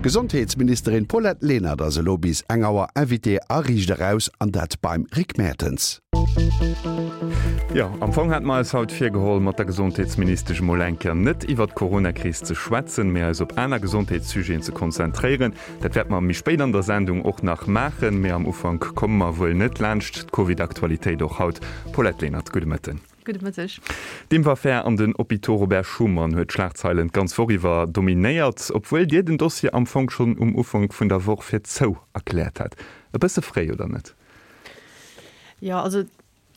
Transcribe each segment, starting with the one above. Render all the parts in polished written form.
D'Gesondheetsministerin Paulette Lenert ass elo bis eng Auer Invitée a Riicht Eraus, an dat beim Rick Mertens. Jo, am Fong hate mer eis haut virgeholl, mat der Gesondheetsministesch emol eng Kéier net iwwert d'Coronakris ze schwätzen, mee eis op aner Gesondheetssujeten ze konzentréieren. Dat wäerte mer méi spéit an der Sendung och nach maachen, mee am Ufank komme mer wuel net laanscht d'Covid-Aktualitéit och haut. Paulette Lenert, gudde Mëtten. Gudde Mëtteg. D'Impfaffär an den Hôpitaux Robert Schuman huet d'Schlagzeilen d'ganz Woch iwwer dominéiert, obwuel Dir den Dossier am Fong schonn um Ufank vun der Woch fir zou erkläert hat. E bësse fréi, oder net? Jo, also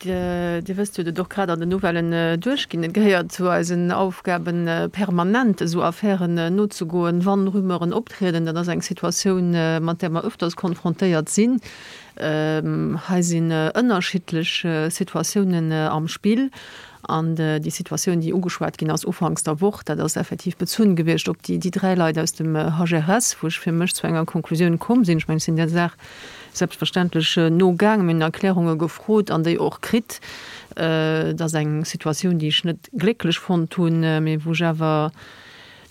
Dir wësst jo, et och grad an den Nouvellen duerchginn, et gehéiert zu eisen Aufgaben, permanent esou Affären nozegoen, wann Rumeuren optrieden. Dat ass eng Situatioun, mat där mer öfters konfrontéiert sinn. Hei sinn ënnerschiddlech Situatiounen am Spill. An déi Situatioun, déi ugeschwat ginn ass ufanks der Woch, dat ass effektiv bezunn gewiescht op déi dräi Leit aus dem HRS, wou ech fir mech zu enger Konklusioun komm sinn. Ech mengen, ech sinn där Saach selbstverständlech nogaangen, mir hunn Erklärunge gefrot an déi och kritt. Et ass eng Situatioun, déi ech net glécklech fonnt hunn, mee wou ech awer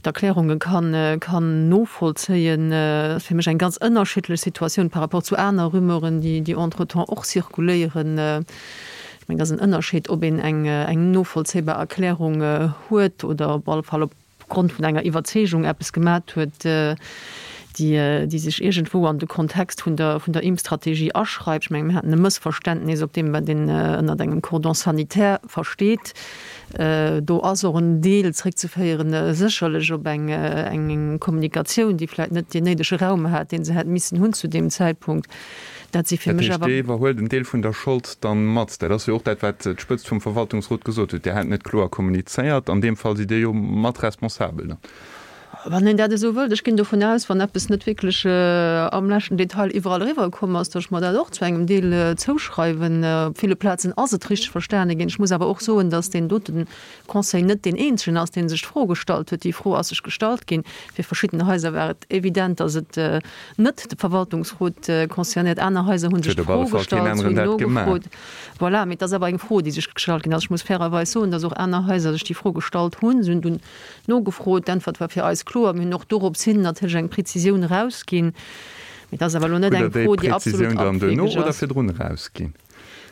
d'Erklärunge kann novollzéien. Et ass fir mech eng ganz ënnerschiddlech Situatioun par rapport zu aner Rumeuren, déi entretemps och zirkuléieren. Ech mengen, et ass en Ënnerscheed, ob een eng novollzéibar Erklärung huet oder op alle Fall op Grond vun enger Iwwerzeegung eppes gemat huet, déi, déi sech iergendwou an de Kontext vun der, vun der Impfstrategie aschreift. Ech mengen, mir haten e Mëssverständnis op deem, wat een ënnert engem Cordon sanitaire versteet. Do ass och en Deel zréckzeféieren sécherlech op eng, eng Kommunikatioun, déi vläicht net deen néidege Raum hat, dee se hätt missen hunn zu deem Zäitpunkt. Dat si fir mech awer. Dat heescht, Dir iwwerhuelt en Deel vun der Schold dann mat. Dat ass jo och dat, wat d'Spëtzt vum Verwaltungsrot gesot huet. Dir hätt net kloer kommunizéiert. An deem Fall sidd Dir jo mat responsabel dann. Wann een dat esou wëllt. Ech ginn dovun aus, wann eppes net wierklech am leschten Detail iwwerall eriwwerkomm ass, datt ech mer dat och zu engem Deel zouschreiwen. Op ville Plazen ass et richteg verstane ginn. Ech muss awer och soen, datt deen dote Conseil net deen eenzegen ass, dee sech d'Fro gestallt huet. Déi Fro ass sech gestallt ginn. Fir verschidden Haiser war et evident, datt et net de Verwaltungsrot concernéiert. Aner Haiser hu sech d'Fro gestallt, si hunn nogefrot. Voilà, mee et ass awer eng Fro, déi sech gestallt ginn ass. Ech muss fairerweis soen, datt och aner Haiser sech déi Fro gestallt hunn. Si hunn dunn nogefrot. D'Äntwert war fir eis kloer. Mir hunn och dorops hin natierlech eng Prezisioun erausginn. Mee et ass awer elo net eng Fro, déi absolut abwegeg ass.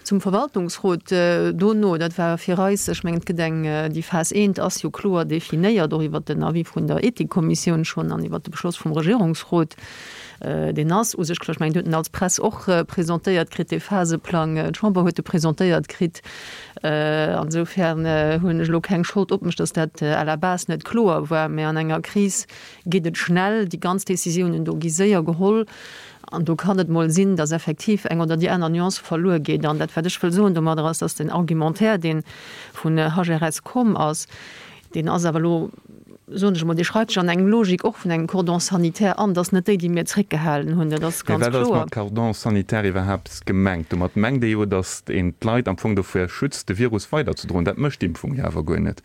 Zum Verwaltungsrot dono, dat war fir eis, ech mengen, et gëtt eng, déi Phas I ass jo kloer definéiert, och iwwert den Avis vun der Ethikkommissioun schonn an iwwert de Beschloss vum Regierungsrot. Deen ass u sech kloer. Ech mengen, Dir hutt en als Press och presentéiert kritt, dee Phaseplang. D'Chamber huet e presentéiert kritt. Ansoufern hunn ech elo keng Schold op mech, datt dat à la base net kloer war. Mä an enger Kris geet et schnell, déi ganz Décisiounen do gi séier geholl. An do kann et mol sinn, dass effektiv eng oder déi aner Nuance verluer geet. An dat, wat ech wëll soen domadder, ass, dass den Argumentaire, dee vun HRS komm ass, deen ass awer elo, soen ech emol, dee schreift sech an eng Logik och vun engem Cordon sanitaire an. Dat ass net déi, déi mir zréckgehalen hunn, dat ass Mee ganz wat ass kloer. mat Cordon sanitaire iwwerhaapt gemengt? Domat mengt ee jo, dass een d'Leit am Fong dovir schützt, de Virus weiderzedroen. Dat mécht d'Impfung jo awer guer net.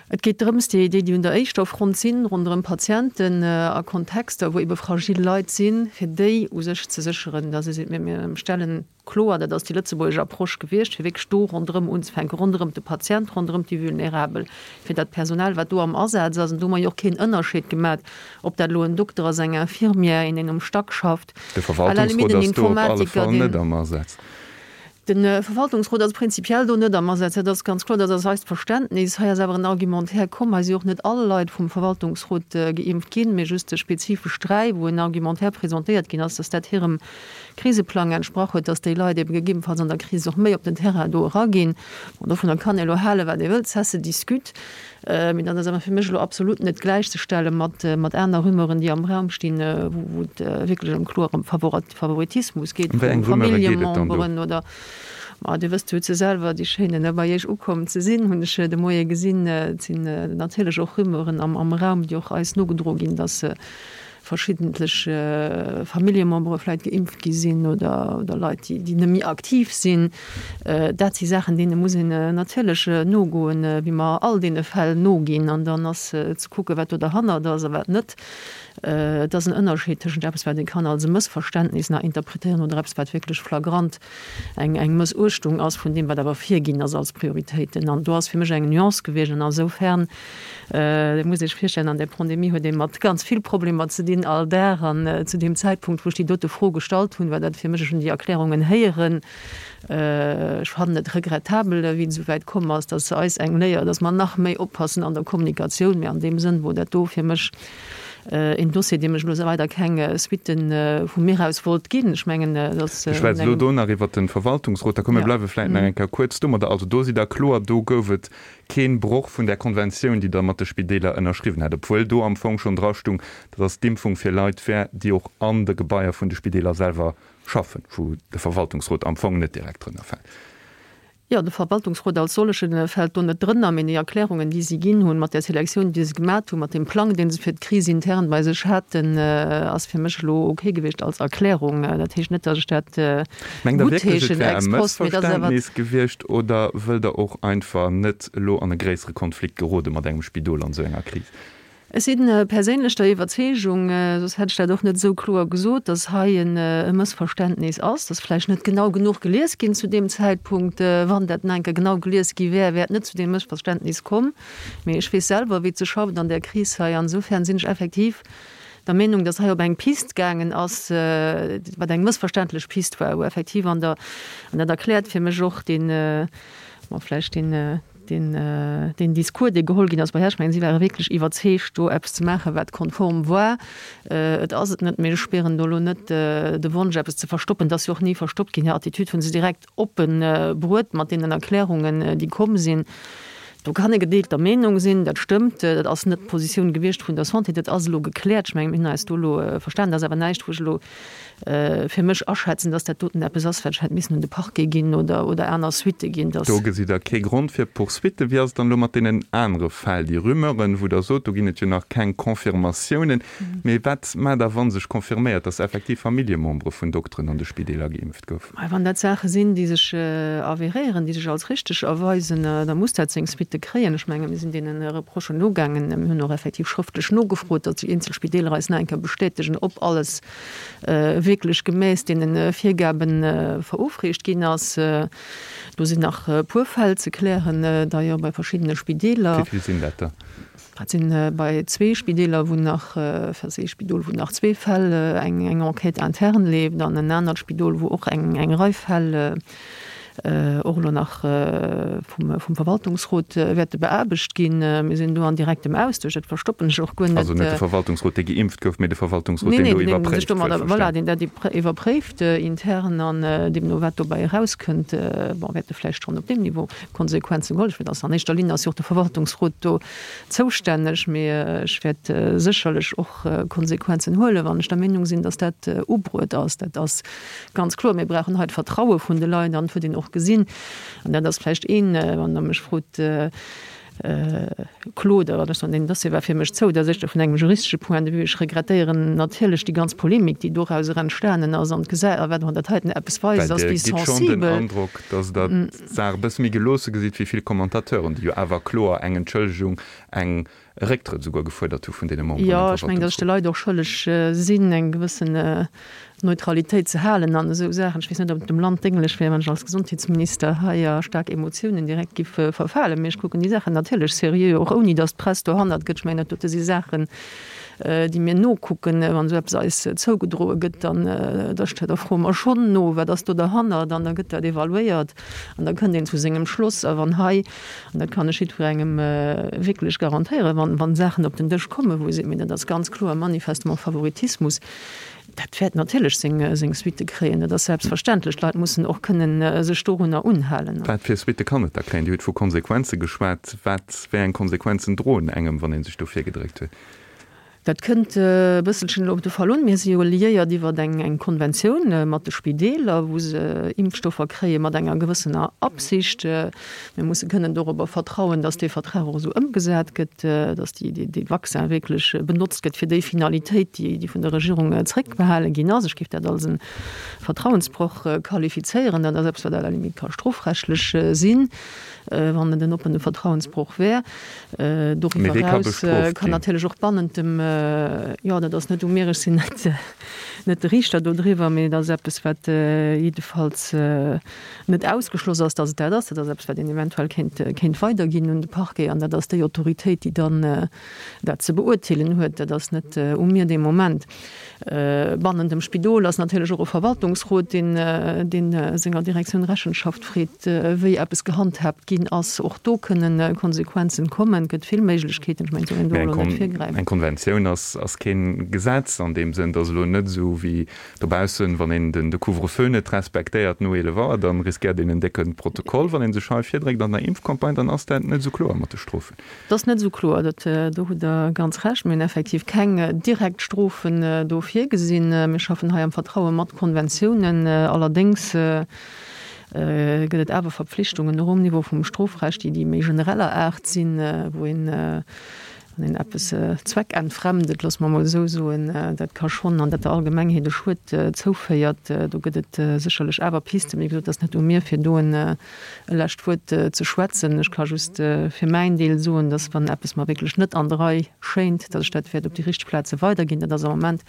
Et geet drëms, déi, déi un der éischter Front sinn, ronderëm Patienten a Kontexter, wou ebe fragil Leit sinn, fir déi u sech ze sécheren, dass ee seet, mir, mir stellen kloer, dat ass déi lëtzebuergesch Approche gewiescht, fir wierklech do ronderëm unzefänken, ronderëm de Patient, ronderëm déi Vulnerabel, fir dat Personal, wat do am Asaz ass. An do hu mer jo och keen Ënnerscheed gemat, ob dat elo en Dokter ass, eng Infirmière, een, deen um Stack schafft, De à la limite Verwaltungsrot en ass do op alle Informatiker, Fall net deen. am Asaz. De Verwaltungsrot ass prinzipiell do net am Asaz, dat ass ganz kloer, dat ass eist Verständnis. Hei ass awer en Argumentaire komm, hei si och net all Leit vum Verwaltungsrot geimpft ginn, mee just spezifesch 3, wou en Argumentaire presentéiert ginn ass, dass dat hirem Kriseplang entsprach huet, dass déi Leit ebe gegebenfalls an der Kris och méi op den Terrain do eraginn. Bon, dovunner kann ee elo halen, wat ee wëllt, ça se discute. Mee dat ass awer fir mech elo absolut net gläichzestelle mat aner Rumeuren, déi am Raum stinn, wou et wierklech ëm kloer ëm Favoritismus geet vu Familljememberen oder, ma Dir wësst, Dir hutt se selwer, déi schéinen bei Iech ukomm ze sinn, hunn ech de Moie gesinn. Et sinn natierlech och Rumeuren am Raum, déi och eis nogedroe ginn, dass. Verschiddentlech Familljemembere vläit geimpft gi sinn oder Leit, déi net méi aktiv sinn. Dat si Saachen, deene muss een natierlech nogoen, wéi mer all deene Fäll noginn. An dann ass ze kucken, wat do derhannert ass a wat net. Et ass en Ënnerscheed tëschent eppes, wat ee kann als e Mëssverständnis nach interpretéieren oder eppes, wat wierklech flagrant eng eng Mëssuechtung ass vun deem, wat awer virginn ass als Prioritéiten. An do ass fir mech eng Nuance gewiescht. An asoufern, Dir musst Iech virstellen, an där Pandemie huet ee mat ganz vill Problemer ze dinn all Dag. An zu deem Zäitpunkt, wou ech déi dote Fro gestallt hunn, war dat fir mech, ech hunn déi Erklärungen héieren, ech fannen et regrettabel, wéi et esou wäit komm ass, dass eis eng Léier, dass mer nach méi oppassen an der Kommunikatioun. Mä an deem Sënn wor dat do fir mech een Dossier, deem ech elo weider keng Suitten vu mir aus wollt ginn. Ech mengen, dass. Ech schwätze elo do nach iwwert de Verwaltungsrot. Da komm, mir bleiwe vläicht nach eng Kéier kuerz domadder. Also do sidd Der kloer, do gouf et keen Broch vun där Konventioun, déi Der mat de Spideeler ënnerschriwwen hat, obwuel do am Fong schonn drastung, dass d'Impfung fir Leit wär, déi och an de Gebaier vun de Spideeler selwer schaffen, wou de Verwaltungsrot am Fong net direkt drënner fält. Jo, de Verwaltungsrot als solleche fält do net drënner, mee déi Erklärungen, déi si ginn hunn, mat där Selektioun, déi se gemat hunn, mat deem Plang, dee se fir d'Kris intern bei sech haten, ass fir mech elo ok gewiescht als Erklärung. Dat heescht net, datt ech dat Mengt Der wierklech, et wär e Mëssverständnis gewiescht oder wëllt Der och einfach net elo an e gréissere Konflikt gerode mat engem Spidol an esou enger Kris? Ech si perséinlech der Iwwerzeegung, soss hätt ech dat och net esou kloer gesot, datt hei e Mëssverständnis ass, datt vläicht net genau genuch gelies ginn zu deem Zäitpunkt. Wann dat nach eng Kéier genau gelies gi wär, wär et net zu deem Mëssverständnis komm. Mee ech weess selwer, wéi et sech schafft an där Kris hei. An esoufernen sinn ech effektiv der Meenung, datt hei op eng Pist gaangen ass, wat eng mëssverständlech Pist war, wou effektiv an der, an dat erkläert fir mech och deen, bon, vläicht deen, deen, deen Discours, dee geholl ginn ass bei Här, ech mengen, si ware wierklech iwwerzeegt, do eppes ze maachen, wat konform war. Et ass et net, mee ech spieren do elo net de Wonsch, eppes ze verstoppen. Et ass jo och ni verstoppt ginn. Hir Attitüd hu se direkt oppe bruet mat deenen Erklärungen, déi komm sinn. Do kann ee gedeelter Meenung sinn, dat stëmmt. Dat ass net d'Positioun gewiescht vun der Santé. Dat ass elo gekläert. Ech mengen, mir hunn eis do elo verstanen. Dat ass awer näischt, wou ech elo fir mech aschätzen, dass dat doten eppes ass, wat ech hätt missen un de Parquet ginn oder, oder aner Suitte ginn. Dass. Do gesitt Der kee Grond fir Poursuitten. Wéi ass et dann elo mat deenen anere Fäll, déi Rumeuren, wou Der sot, do ginn et jo nach keng Confirmatiounen. Mee wat maacht Der, wa sech confirméiert, dass effektiv Familljemembere vun Dokteren an de Spideeler geimpft goufen? Wann dat Saache sinn, déi sech avérieren, déi sech als richteg erweisen, da muss dat seng Suitte kréien. Ech menge mir sinn deene Reprochen nogaangen. Mir hunn och effektiv schrëftlech nogefrot, datt déi eenzel Spideeler eis nach eng Kéier bestätegen, ob alles wierklech gemäss deene Virgabe verofreecht ginn ass. Do sinn nach e puer Fäll ze klären, d'ailleurs bei verschiddene Spideeler. Wéi vill sinn dat der? Dat sinn bei zwee Spideeler, wou nach, enfin ee Spidol, wou nach zwee Fäll, eng eng Enquête interne leeft an en anert Spidol, wou och eng eng Rei Fäll och elo nach vum vum Verwaltungsrot wäerte beaarbecht ginn. Mir sinn do an direktem Austausch, dat verstoppen ech och guer net. Also net de Verwaltungsrot, dee geimpft gouf, mee de Verwaltungsrot, deen do iwwerpréift, wuel verstanen. Voilà, deen dat iwwerpréift intern an deemno wat dobäi erauskënnt, bon, wäerte vläicht schonn op deem Niveau Konsequenzen geholl. Ech also an éischter Linn ass jo och de Verwaltungsrot do zoustänneg, mee ech wäert sécherlech och Konsequenzen huelen, wann ech der Meenung sinn, datt dat ubruet ass. Dat ass ganz kloer. Mir brauchen hei d'Vertraue vun de Leit an et huet een och gesinn, an dat ass vläicht een, wann Der mech frot, Claude, wat ech soen, deen Dossier war fir mech zou, dat ass éischter vun engem juristesche Point de vue. Ech regrettéieren natierlech déi ganz Polemik, déi dorauser entstanen ass an d'Geset, a wat och dat heiten eppes weist, ass, wéi sensibel. Well Dir gitt schonn den Androck, datt Der d'Saach e bësse méi geloosse gesitt wéi vill Commentateuren, déi jo awer kloer eng Entschëllegung, eng e Récktrëtt esouguer gefuerdert hu vun deene Memberen am Jo, ech mengen, datt ech de Leit och schëlleg sinn, eng gewëssen Neutralitéit ze halen an esou Saachen. Ech weess net, ob et dem Land dénglech wär, wann ech als Gesondheetsminister hei a staark Emotiounen direkt giff verfalen. Mee ech kucken déi Saachen natierlech seriö, och ouni datt d'Press dohannert gëtt. Ech mengen, dat dote si Saachen, déi mir nokucken. Wann esou eppes eis zougedroe gëtt, dann, da da froe mer schonn no, wat ass do derhannert? An da gëtt dat evaluéiert an da kënnt een zu sengem Schloss. A wann hei, an dat kann ech jiddwerengem wierklech garantéieren, wann, wann Saachen op den Dësch kommen, wou ee seet, mee dat ass ganz kloer manifestement Favoritismus, Dat wäert natierlech seng Suitte kréien, dat ass selbstverständlech. D'Leit mussen och kënnen sech dorunner unhalen. Wat fir Suitte kann et da kréien? Dir hutt vu Konsequenze geschwat. Wat, wéi eng Konsequenzen droen engem, wann ee sech do virgedréckt huet? Dat kënnt e bësselchen elo op de Fall un. Mir si jo liéiert iwwer eng Konventioun mat de Spideeler, wou se Impfstoffer kréie mat enger gewëssener Absicht. Mir musse kënnen dorobber vertrauen, datt dee Vertrag och esou ëmgesat gëtt, datt dee Vaccin wierklech benotzt gëtt fir déi Finalitéit, déi vun der Regierung zréckbehale ginn ass. Ech géif dat als e Vertrauensbroch qualifizéieren. Dat ass eppes, wat à la limite ka strofrechtlech sinn, wann et en oppene Vertrauensbroch wär. Doriwwer eraus kann natierlech och bannent dem, jo, dat ass net u mir, ech sinn net, net de Riichter dodriwwer, mee et ass eppes, wat jiddefalls net ausgeschloss ass, datt et dat ass. Dat ass eppes, wat een eventuell kéint, kéint weiderginn un de Parquet an dat ass déi Autoritéit, déi dann dat ze beurteelen huet. Dat ass net u mir dee Moment. Bannent dem Spidol ass natierlech och e Verwaltungsrot, deen, deen senger Direktioun Rechenschaft freet, wéi eppes gehandhaabt ginn ass. Och do kënnen Konsequenzen kommen. Et gëtt vill Méiglechkeeten. Ech mengen, et soll een do elo net virgräifen. Eng Konventioun ass, ass keen Gesetz an deem Sënn. Et ass elo net esou wéi dobaussen, wann een den de Couvre-feu net respektéiert no 11 Auer, dann riskéiert een en décke Protokoll. Wann ee sech hei virdréckt an der Impfcampagne, dann ass dat net esou kloer mat de Strofen. Dat ass net esou kloer, dat, do hutt Der ganz Recht. Mir hunn effektiv keng direkt Strofen do virgesinn. Mir schaffen hei am Vertraue mat Konventiounen. Allerdéngs gëtt et awer Verpflichtungen och um Niveau vum Strofrecht, déi déi méi genereller Aart sinn, wou een, wann een eppes zweckentfremdet, loosse mer emol esou soen, dat ka schonn an dat der Allgemengheet e Schued zouféiert. Do gëtt et sécherlech awer Pisten. Mee wéi gesot, et ass net u mir, fir do en e lescht Wuert ze schwätzen. Ech ka just fir mäin Deel soen, dass, wann eppes mer wierklech net an der Rei schéint, dass ech dat wäert op déi richteg Plaze weiderginn. Dat ass am Moment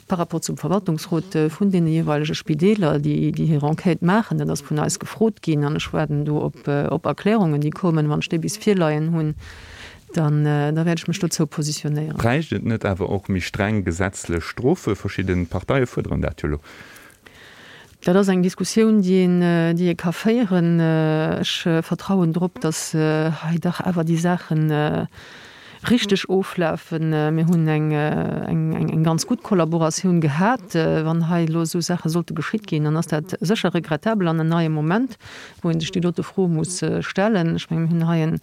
par rapport zum Verwaltungsrot vun deene jeeweilege Spideeler, déi déi hir Enquête maachen. Dat ass vun eis gefrot ginn an ech waarden do op op Erklärungen, déi kommen. Wann ech déi bis virleien hunn, dann da wäert ech mech dozou positionéieren. Bräicht et net awer och méi streng gesetzlech Strofe? Verschidde Parteie fuerderen dat jo elo. Dat ass eng Diskussioun, déi een, déi ee ka féieren. Ech vertrauen drop, datt hei dach awer déi Saache richteg oflafen. Mir hunn eng, eng, eng ganz gutt Kollaboratioun gehat. Wann hei elo esou Saache sollte geschitt ginn, dann ass dat sécher regrettabel an en neie Moment, wou ee sech déi dote Fro muss stellen. Ech mengen, mir hunn hei en,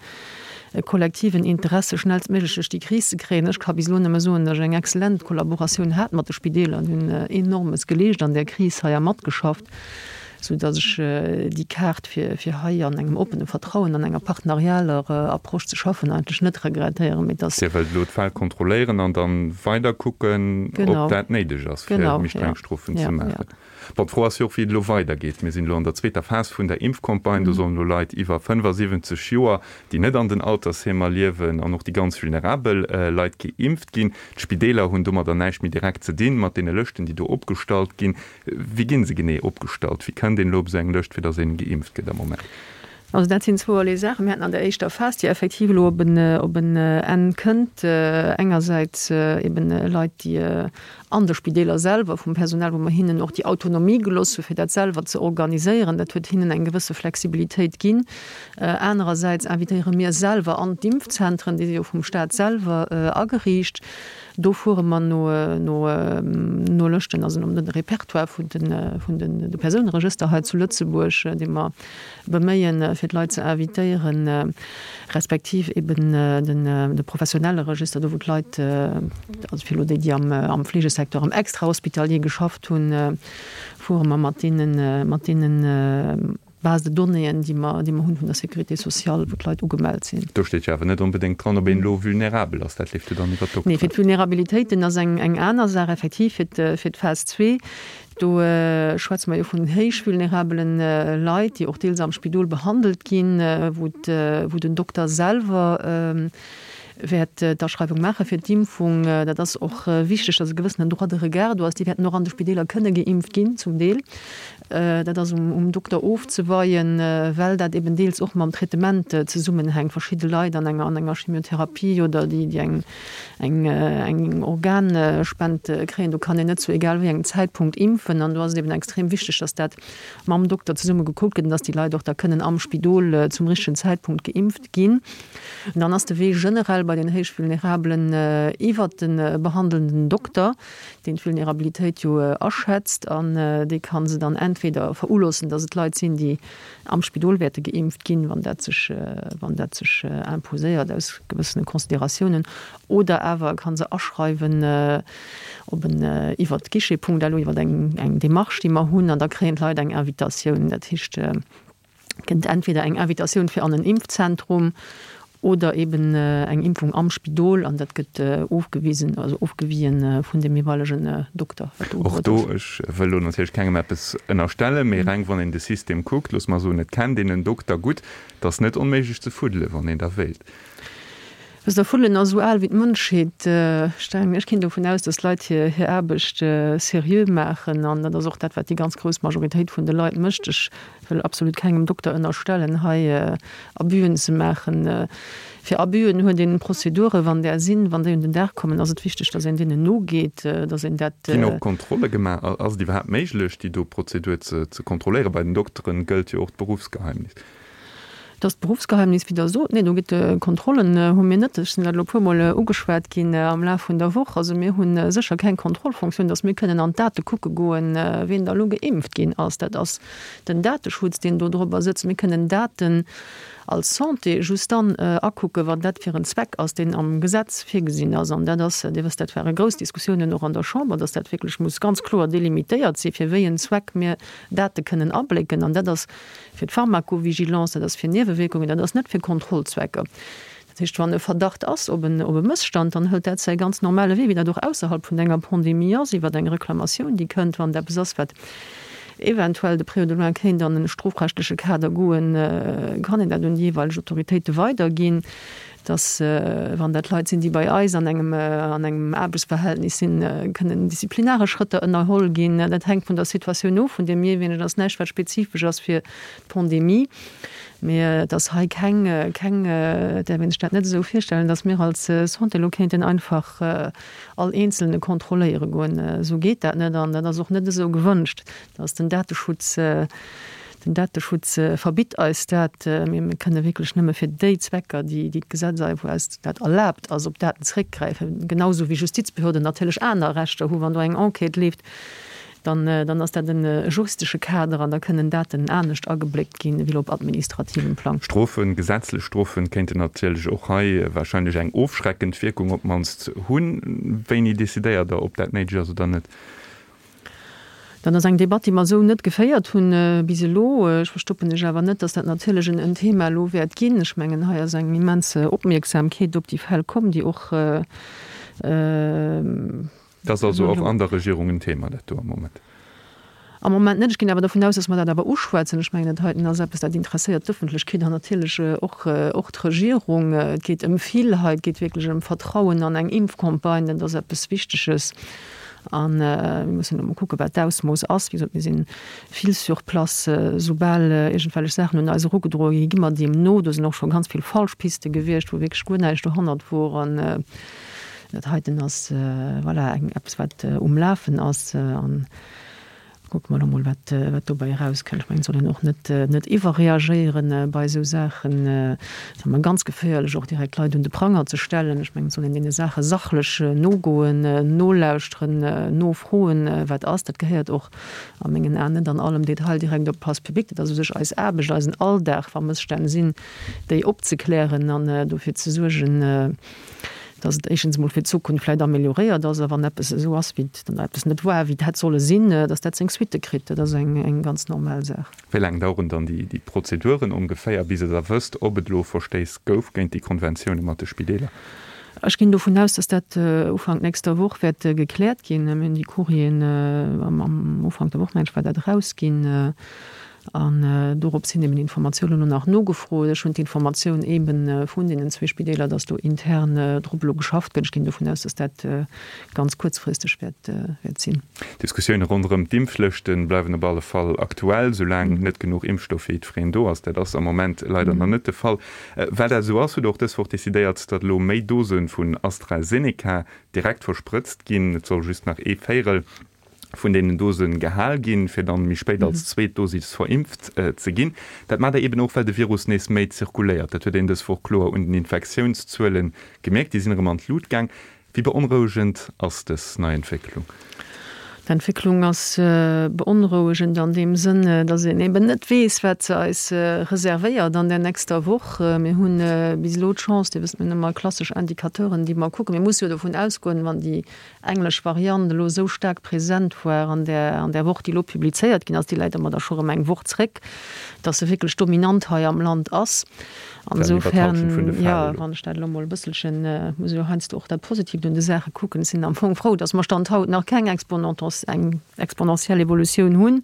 e kollektiven Interesse schnellstméiglech duerch déi Kris ze kréien. Ech ka bis elo nëmme soen, datt ech eng exzellent Kollaboratioun hat mat de Spideeler. Déi hunn Enormes geleescht an där Kris hei a matgeschafft, sou datt ech déi Kaart fir fir hei an engem oppene Vertrauen, an enger partnerialer Approche ze schaffen, eigentlech net regrettéieren. Mee dass. Dir wëllt elo d'Fäll kontrolléieren an dann weider kucken, ob dat néideg ass, fir méi streng Strofen ze maachen. Bon, d'Fro ass jo och, wéi et elo weidergeet. Mir sinn elo an der zweeter Phas vun der Impfcampagne. Do sollen elo Leit iwwer 75 Joer, déi net an den Altersheemer liewen, an och déi ganz vulnerabel Leit geimpft ginn. D'Spideeler hunn domadder näischt méi direkt ze dinn, mat deene Lëschten, déi do opgestallt ginn. Wéi gi se genee opgestallt? Wéi kënnt een elo op esou eng Lëscht, fir datt een geimpft gëtt am Moment? Also dat sinn zwouerlee Saachen. Mir haten an der éischter Phas, déi effektiv elo op en Enn kënnt, engersäits eben Leit, déi an de Spideeler selwer, vum Personal, wou mer hinnen och déi Autonomie gelooss hu fir dat selwer ze organiséieren. Dat huet hinnen eng gewësse Flexibilitéit ginn. Anerersäits invitéiere mir selwer an d'Impfzentren, déi si jo vum Staat selwer ageriicht. Do fuere mer no no Lëschten, also nom de Répertoire vun de vun de Persouneregëster hei zu Lëtzebuerg, dee mer beméien, fir d'Leit ze invitéieren, respektiv eben den de professionelle Register, do wou d'Leit, also fir elo déi, déi am am Fleegesecteur, am Extrahospitalier geschafft hunn, fuere mer mat deenen, mat deenen Base de donnéeën, déi mer, déi mer hunn vun der Sécurité sociale, wou d'Leit ugemellt sinn. Do steet jo awer net onbedéngt dran, ob een elo vulnerabel ass. Dat leeft jo dann iwwer d'Dokteren. Nee, fir d'Vulnerabilitéiten ass eng eng aner Saach, effektiv, fir fir d'Phas zwee. Do schwätze mer jo vun héich vulnerabelen Leit, déi och deels am Spidol behandelt ginn, wou wou den Dokter selwer wäert d'Aschreiwung maache fir d'Impfung. Dat ass och wichteg, dass e gewëssenen Droit de regard do ass. Déi wäerten och an de Spideeler kënne geimpft ginn, zum Deel. Dat ass um Dokter ofzeweien, well dat eben deels och mam Traitement zesummenhänkt. Verschidde Leit an enger an enger Chemiotherapie oder déi déi eng eng eng Organspend kréien, do kann een net zu egal wéi engem Zäitpunkt impfen. An do ass et eben extrem wichteg, dass dat mam Dokter zesumme gekuckt gëtt an dass déi Leit och da kënnen am Spidol zum richtegen Zäitpunkt geimpft ginn. An dann ass de Wee generell. bei den héich Vulnerabelen iwwert de behandelnden Dokter, deen d'Vulnerabilitéit jo aschätzt an dee ka se dann entweder veruloossen, datt et Leit sinn, déi am Spidol wäerte geimpft ginn, wann dat sech, wann dat sech imposéiert aus gewëssene Consideratiounen, oder awer e ka se aschreiwen op en, iwwert Guichet.lu, iwwert eng, eng Démarche, déi mer hunn, an da kréien d'Leit eng Invitatioun. Dat heescht, et kënnt entweder eng Invitatioun fir an en Impfzentrum oder eben eng Impfung am Spidol an dat gëtt ofgewisen, also ofgewien vun dem jeeweilegen Dokter, wat do Och do, ech wëll elo natierlech kengem eppes ënnerstellen, mee reng wann een de System kuckt, loosse mer soen, et kennt een en Dokter gutt, et ass net onméiglech ze fuddelen, wann een da wéilt. Wësst Der, Fuddelen ass esou al wéi d'Mënschheet. Ech denken, ech ginn dovun aus, dass d'Leit hir hir Aarbecht seriö maachen an dat ass och dat, wat déi ganz grouss Majoritéit vun de Leit mécht. Ech wëll absolut kengem Dokter ënnerstellen, hei Abüen ze maachen. Fir Abüen huet een Prozeduren, wann där sinn, wann déi un den Dag kommen, ass et wichteg, dass een deenen nogeet, dass een dat. Ginn och Kontrolle gemaach? Ass et iwwerhaapt méiglech, déi do Prozedur ze kontrolléieren? Bei den Dokteren gëllt jo och d'Beruffsgeheimnis. Dass d'Beruffsgeheimnis, wéi Der sot, nee, do gëtt Kontrollen hu mir net. Ech sinn dat elo e puermol ugeschwat ginn am Laf vun der Woch. Also mir hu sécher keng Kontrollfunktioun, dass mir kënnen an d'Date kucke goen, wien da elo geimpft ginn ass. Dat ass den Dateschutz, deen do drobber sëtzt. Mir kënnen Daten als Santé just dann akucken, wann dat fir en Zweck ass, deen am Gesetz virgesinn ass. An dat ass, Dir wësst, dat ware grouss Diskussiounen och an der Chamber, dass dat wierklech muss ganz kloer delimitéiert sinn, fir wéi en Zweck mir Date kënnen ablécken. An dat ass fir d'Pharmacovigilance, dat ass fir Niewewierkungen, dat ass net fir Kontrollzwecker. Dat heescht, wann e Verdacht ass op en op e Mësstand, dann hëlt dat säi ganz normale Wee, wéi dat och ausserhalb vun enger Pandemie ass, iwwer eng Reklamatioun, déi kënnt, wann et eppes ass, wat eventuell de près ou de loin kéint an e strofrechtleche Kader goen, kann een dat un déi jeeweileg Autoritéite weiderginn. Dass, wann dat Leit sinn, déi bei eis an engem, an engem Aarbechtsverhältnis sinn, kënnen disziplinaresch Schrëtter ënnerholl ginn. Dat hänkt vun der Situatioun of, vun deem jeeweilegen. Dat ass näischt, wat spezifesch ass fir d'Pandemie. Mee et ass hei keng, keng, et däerf een sech dat net esou virstellen, dass mir als Santé elo kéinten einfach all Eenzelne kontrolléiere goen. Esou geet dat net an dat ass och net esou gewënscht. Dass den Dateschutz, den Dateschutz verbitt eis dat. Mir kënne wierklech nëmme fir déi Zwecker, déi d'Gesetz eis, wou eis dat erlaabt ass, op Daten zréckgräifen. Genau esou wéi Justizbehörden natierlech aner Rechter hu wann do eng Enquête leeft, dann, dann ass dat e juristesche Kader an da kënnen Daten anescht agebléckt ginn ewéi elo op administrativem Plang. Strofen, gesetzlech Strofen kéinten natierlech och hei wahrscheinlech eng ofschreckend Wierkung op d'mannst hunn. Wéini decidéiert Der, ob dat néideg ass oder net? Dat ass eng Debatt, déi mer esou net geféiert hunn bis elo. Ech verstoppen lech awer net, dass dat natierlech en Thema elo wäert ginn. Ech mengen, hei ass eng immens Opmierksamkeet op déi Fäll komm, déi och. Dat ass also och an der Regierung en Thema, dat do am Moment? Am Moment net. Ech ginn awer dovun aus, dass mer dat awer uschwätzen. Ech mengen, dat heiten ass eppes, dat interesséiert d'Ëffentlechkeet an natierlech och, och d'Regierung. Et geet ëm vill hei. Et geet wierklech ëm Vertrauen an eng Impfcampagne. Dat ass eppes Wichteges. A mir mussen elo mol kucken, wat d'Ausmooss ass. Wéi gesot, mir si vill sur place. Soubal iergendwellech Saachen un eis erugedroe ginn, gi mer deem no. Do sinn och scho ganz vill falsch Piste gewiescht, wou wierklech guer näischt dohannert wor. An dat heiten ass, voilà, eng eppes, wat um Lafen ass. An Kucke mer elo mol, wat dobäi erauskënnt. Ech mengen, et soll een och net net iwwerreagéieren bei esou Saachen. Et ass ëmmer ganz geféierlech, och direkt Leit un de Pranger ze stellen. Ech mengen, et soll een deene Saache sachlech nogoen, nolauschteren, nofroen, wat ass. Dat gehéiert och a mengen Aen net an allem Detail direkt op d'Place publique. Dat ass u sech eis Aarbecht, eisen Alldag, wa Mësstänn sinn, déi opzeklären an dofir ze suergen, dass et éischtens emol fir d'Zukunft vläicht amélioréiert ass, a wann eppes esou ass, wéi et, dann eppes net war, wéi et hätt solle sinn, dass dat seng Suitte kritt. Dat ass eng, eng ganz normal Saach. Wéi laang daueren dann déi, déi Prozeduren ongeféier, bis Der da wësst, ob et elo Verstéiss gouf géint déi Konventioune mat de Spideeler? Ech ginn dovun aus, dass dat Ufank nächster Woch wäert gekläert ginn. Mir hunn déi Courrieren am, am Ufank der Woch, mengen ech, war dat erausginn. An dorops hin eben Informatiounen elo nach nogefrot. Ech hunn d'Informatioun ebe vun deenen zwee Spideeler, dass do intern drop elo geschafft gëtt. Ech ginn dovun aus, dass dat ganz kuerzfristeg wäert sinn. D'Diskussioune ronderëm d'Impflëschte bleiwen op alle Fall aktuell, soulaang net genuch Impfstoff fir jiddwereen do ass. Dat ass am Moment leider nach net de Fall. Well dat esou ass, huet och dës Woch decidéiert, datt elo méi Dose vun AstraZeneca direkt versprëtzt ginn. Et soll just nach ee Véierel. Vun deenen Dose gehal ginn, fir dann méi spéit als zweet Dosis verimpft ze ginn. Dat maacht Der eben och, well de Virus nees méi zirkuléiert. Dat huet een dës Woch kloer un den Infektiounszuele gemierkt. Déi sinn erëm an d'Lut gaang. Wéi beonrouegend ass dës nei Entwécklung? D'Entwécklung ass beonrouegend an deem Sënn, datt een eben net weess, wat se eis reservéiert an der nächster Woch. Mir hu bis elo d'Chance, Dir wësst, mir hunn ëmmer klassesch Indicateuren, déi mer kucken. Mir musse jo dovun ausgoen, wann déi englesch Variant elo esou staark present war an där an där Woch, déi elo publizéiert ginn ass, déi läit ëmmer da scho rëm eng Woch zréck, datt se wierklech dominant hei am Land ass. An esoufern, jo, wann ech dat elo emol e bësselchen, muss ech jo heiansdo och dat Positiivt un de Saache kucken, ech sinn am Fong frou, datt mer Stand haut nach keng eng exponentiell Evolutioun hunn,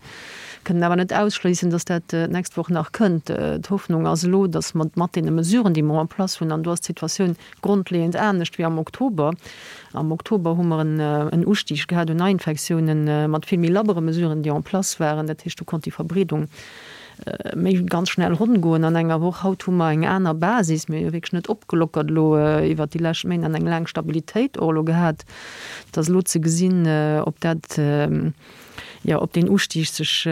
kënnen awer net ausschléissen, datt dat d'nächst Woch nach kënnt. D'Hoffnung ass elo, datt mer mat deene Mesuren, déi mer en place hunn, an do ass d'Situatioun Grondleeënd anescht wéi am Oktober. Am Oktober hu mer en Ustig gehat un Neiinfektiounen mat vill méi labbere Mesuren, déi en place waren. Dat heescht, do konnt déi Verbreedung méi ganz schnell ronn goen an enger Woch. Haut hu mer eng aner Basis. Mir hu jo wierklech net opgelockert elo iwwert déi lescht Méint an eng laang Stabilitéit och elo gehat. Et ass elo ze gesinn, ob dat, jo, ob deen Ustig sech,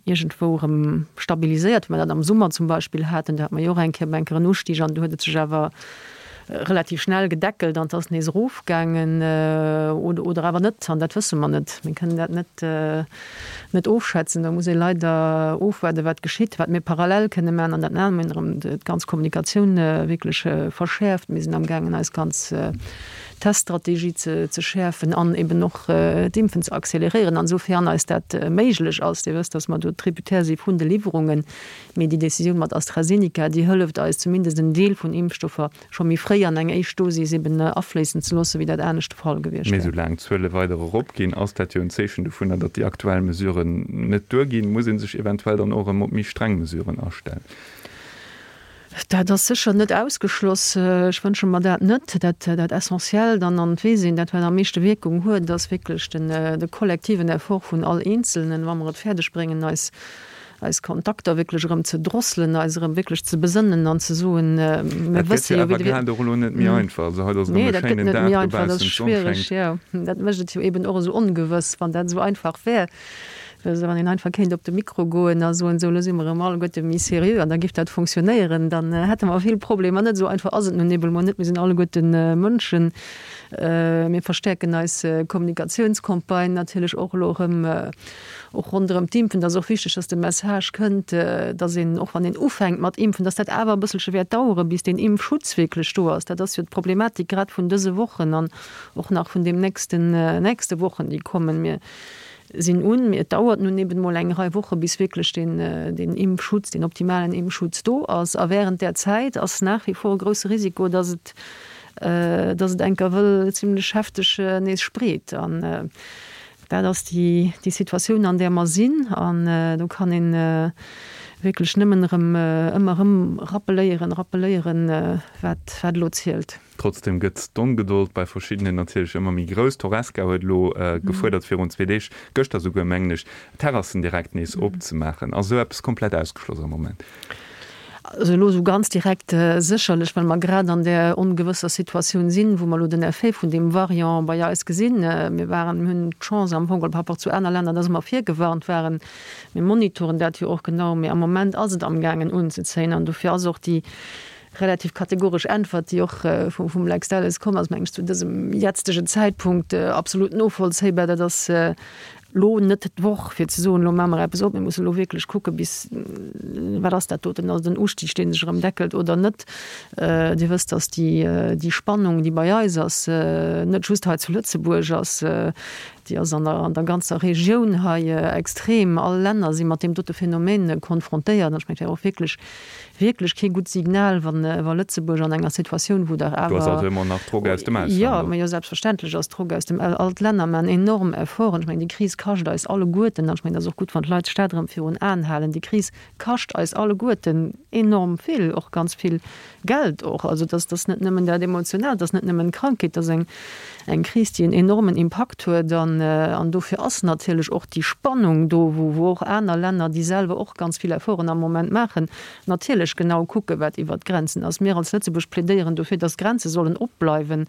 iergendwou erëm stabiliséiert, wéi mer dat am Summer zum Beispill haten, do hate mer jo och eng Kéier eng Kéier en Ustig an do huet et sech awer relativ schnell gedeckelt an et ass nees erofgaangen oder, oder awer net an dat wësse mer net. Mir kënnen dat net, net ofschätzen. Do muss ee leider ofwaarden, wat geschitt. Wat mir parallel kënne maachen, an dat maache mir erëm, d'ganz Kommunikatioun wierklech verschäerft. Mir sinn amgaangen eis ganz Teststrategie ze schäerfen an eben och d'Impfen ze acceleréieren, an esou-fern eis dat méiglech ass. Dir wësst, dass mer do tributaire si vun de Liwwerungen, mee déi Décisioun mat AstraZeneca, déi hëlleft eis zumindest en Deel vun Impfstoffer scho méi fréi an eng éischt Dosis eben afléissen ze loossen, wéi dat anescht de Fall gewiescht Mee wär. soulaang d'Zuele weider eropginn, ass dat jo en Zeechen dovunner, datt déi aktuell Mesuren net duerginn. Muss ee sech eventuell dann och erëm op méi streng Mesuren astellen? Dat ass sécher net ausgeschloss. Ech wënsche mer dat net. Dat, dat Essentiellt an an d'Weess een, dat wat am meeschte Wierkung huet, ass wierklech den, de kollektiven Effort vun all Eenzelnen, wa mer et fäerdeg bréngen, eis, eis Kontakter wierklech erëm ze drosselen, eis erëm wierklech ze besënnen an ze soen, mir Dat gëtt wësse jo jo, wéi awer de. grad och elo net méi einfach. Also haut ass erëm Nee, e dat gëtt schéinen net Dag méi einfach, dat ass dobaussen, d'Sonn schwiereg, schéngt. jo. Dat mécht et jo eben och esou ongewëss. Wann dat esou einfach wär, Also wann een einfach kéint op de Mikro goen a soen, esou elo si mer erëm alleguerte méi seriö an da giff dat fonctionnéieren, dann hätte mer vill Problemer net. Esou einfach ass et nun eben emol net. Mir sinn alleguerte Mënschen. Mir verstäerken eis Kommunikatiounscampagne natierlech och elo erëm, och ronderëm d'Impfen. Et ass och wichteg, dass de Message kënnt, dass een, och wann een ufänkt mat impfen, dass dat awer e bësselche wäert daueren, bis deen Impfschutz wierklech do ass. Dat ass jo d'Problematik grad vun dëse Wochen an och nach vun deem nächsten, nächste Wochen, déi kommen. Mir sinn un, mee et dauert nun eben emol eng Rei Woche bis wierklech deen, deen Impfschutz, deen optimalen Impfschutz do ass. A während där Zäit ass nach wie vor e grouse Risiko, dass et, dass et enker wëll zimlech hefteg nees spreet. An dat ass déi, déi Situatioun an där mer sinn. An do kann ee wierklech nëmmen erëm, ëmmer erëm rappeléieren, rappeléieren, wat, wat elo zielt. Trotzdem gëtt d'Ongedold bei verschiddenen natierlech ëmmer méi grouss. D'Horesca huet elo gefuerdert virun zwee Deeg, gëschter souguer mengen ech, d'Terrassen direkt nees opzemaachen. Ass esou eppes komplett ausgeschloss am Moment? Also elo esou ganz direkt sécherlech, well mer grad an där ongewësser Situatioun sinn, wou mer elo den Effet vun deem Variant bei eis gesinn. Mir waren, mir hunn d'Chance am Fong geholl par rapport zu aner Länner, dass mer virgewarnt waren. Mir monitoren dat jo och genau, mee am Moment ass et amgaangen unzezéien an dofir ass och déi relativ kategoresch Äntwert, déi och vum Lex Delles komm ass, meng ech, zu dësem jetztegen Zäitpunkt absolut novollzéibar. Dat ass elo net d'Woch, fir ze soen, elo maache mer eppes op. Mir mussen elo wierklech kucke bis, wat ass dat doten, ass et en Ustig, dee sech erëm deckelt oder net. Dir wësst, datt déi Spannung, déi bei eis ass, net just hei zu Lëtzebuerg ass, déi ass an der ganzer Regioun hei extrem. All Länner si mat deem dote Phänomen konfrontéiert. An ech mengen, et wär och wierklech wierklech kee gutt Signal, wann wa Lëtzebuerg an enger Situatioun, wou dach Do ass awer. also ëmmer nach Drock aus dem Ausland Jo, do. ma jo, selbstverständlech ass Drock aus dem Au-, all d'Länner maachen enorm Efforten. Ech mengen, déi Kris kascht eis alleguerten, an ech mengen, et ass och gutt, wann d'Leit sech dat erëm virun Aen halen, déi Kris kascht eis alleguerten enorm vill, och ganz vill Geld och. Also dass dass net nëmmen dat Emotionaalt, dass net nëmmen d'Krankheet, dass eng eng Kris, déi en enormen Impakt huet. An an dofir ass natierlech och déi Spannung do, wou wou och aner Länner, déi selwer och ganz vill Efforten am Moment maachen, natierlech genau kucken, wat iwwert d'Grenzen ass. Mir als Lëtzebuerg plädéieren dofir, dass d'Grenze sollen opbleiwen.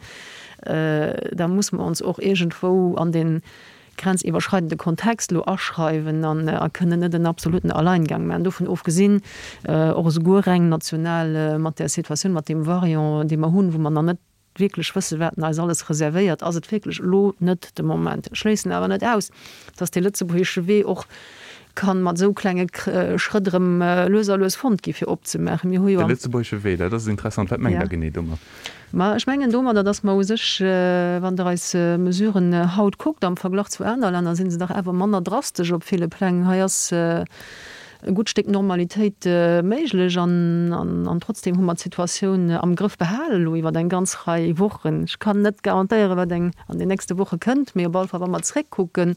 Da muss mer ons och iergendwou an den. grenziwwerschreidende Kontext elo aschreiwen an a kënnen net en absoluten Alleingang maachen. Dovun ofgesinn, och esouguer reng national mat där Situatioun, mat deem Variant, dee mer hunn, wou mer nach net wierklech wëssen, wat en eis alles reservéiert, ass et wierklech elo net de Moment. Ech schléissen awer net aus, dass dee lëtzebuergesche Wee och ka mat esou klenge Schrëtt erëm lues a lues fonnt gi fir opzemaachen. Mir hu jo De lëtzebuergesche Wee, dat ass interessant. Wat mengt Der genee domat? Ma ech mengen domadder, dass mer u sech, wann Der eis Mesuren haut kuckt am Verglach zu aner Länner, si se dach awer manner drastesch op ville Pläng. Hei ass e gutt Stéck Normalitéit méiglech an trotzdem hu mer d'Situatioun am Grëff behalen elo iwwer eng ganz Rei Wochen. Ech kann net garantéieren, wat eng an den nächste Woche kënnt, mee op alle Fall, wa mer zréckkucken,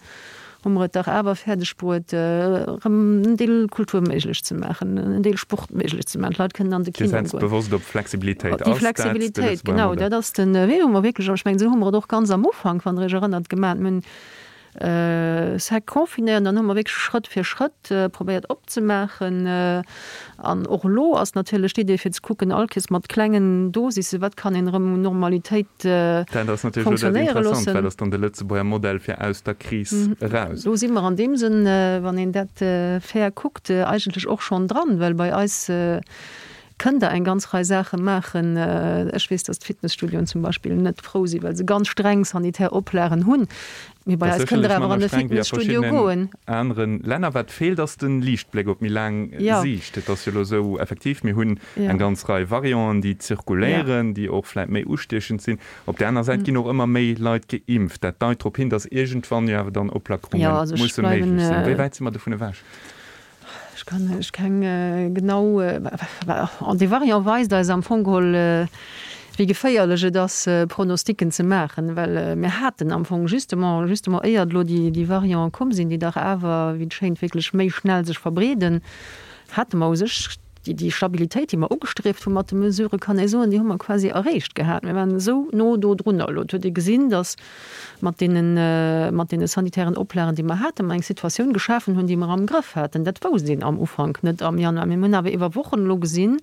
hu mer et dach awer fäerdeg bruet, erëm en Deel Kultur méiglech ze maachen, en Deel Sport méiglech ze maachen. D'Leit kënnen an de Kino goen. Dir setzt bewosst op Flexibilitéit. Déi Flexibilitéit, genau, dat ass de Wee, wou mer wierklech, an ech mengen, esou hu mer et och ganz am Ufank, wann Der Iech erënnert, gemaach. Mir hunn sec confinéiert an dann hu mer wierklech Schrëtt fir Schrëtt probéiert opzemaachen. An och elo ass natierlech d'Idee fir ze kucken, all Kees mat klengen Dosisse, wat kann een erëm un Normalitéit Dat ass natierlech elo dat fonctionnéiere Interessant, loossen. Wat ass dann de Lëtzebuerger Modell fir aus der Kris eraus? Do si mer an deem Sënn, wann een dat fair kuckt, eigentlech och schonn dran, well bei eis kënnt Der eng ganz Rei Saache maachen. Ech weess, datt d'Fitnesstudioen zum Beispill net frou sinn, well se ganz streng sanitär Oplagen hunn. Mee bei eis kënnt Der awer an de Fitnesstudio goen. Aneren Länner. Wat feelt, ass de Liichtbléck op méi laang Siicht. Et ass jo elo esou, effektiv, mir hunn eng ganz Rei Varianten, déi zirkuléieren, déi och vläicht méi ustiechend sinn. Op där aner Säit ginn och ëmmer méi Leit geimpft. Dat deit drop hin, datt iergendwann jo awer dann Oplackerunge musse méiglech sinn. Wéi wäit si mer dovun ewech? Ech kann lech keng genau. An dee Variant weist eis am Fong geholl, wéi geféierlech et ass, Pronosticken ze maachen, well mir haten am Fong justement, justement éiert elo déi Variante komm sinn, déi dach awer, wéi et schéint, wierklech méi schnell sech verbreeden, hate mer u sech déi Stabilitéit, déi mer ugestrieft hu mat de Mesuren, kann ee soen, déi hu mer quasi erreecht gehat. Mir waren esou no do drunner. Elo huet ee gesinn, datt mat deenen, mat deene sanitären Oplagen, déi mer haten, mer eng Situatioun geschafen hunn, déi mer am Grëff haten. Dat wousst een am Ufank net am Januar. Mir hunn awer iwwer Wochen elo gesinn,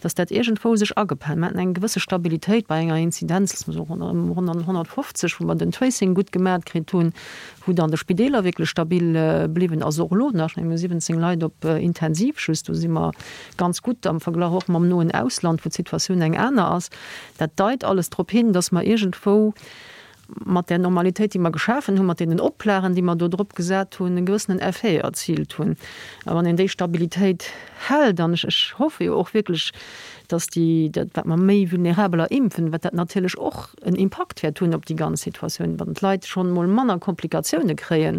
dass dat iergendwou sech agependelt. Mir haten eng gewësse Stabilitéit bei enger Inzidenz, loosse mer soen, ronderëm 150, wou mer den Tracing gutt gemat kritt hunn, wou dann de Spideeler wierklech stabil bliwwen ass, och elo nach. Mir hu 17 Leit op Intensiv just. Do si mer ganz gutt am Verglach och mam noen Ausland, wou d'Situatioun eng aner ass. Dat deit alles drop hin, dass mer iergendwou mat där Normalitéit, déi mer geschafen hunn, mat deenen Oplagen, déi mer do drop gesat hunn, e gewëssenen Effet erziilt hunn. A wann een déi Stabilitéit hält, an ech, ech hoffe jo och wierklech, dass déi, dat wat mer méi Vulnerabeler impfen, wat dat natierlech och en Impakt wäert hunn op déi ganz Situatioun, wann d'Leit schonn emol manner Komplikatioune kréien,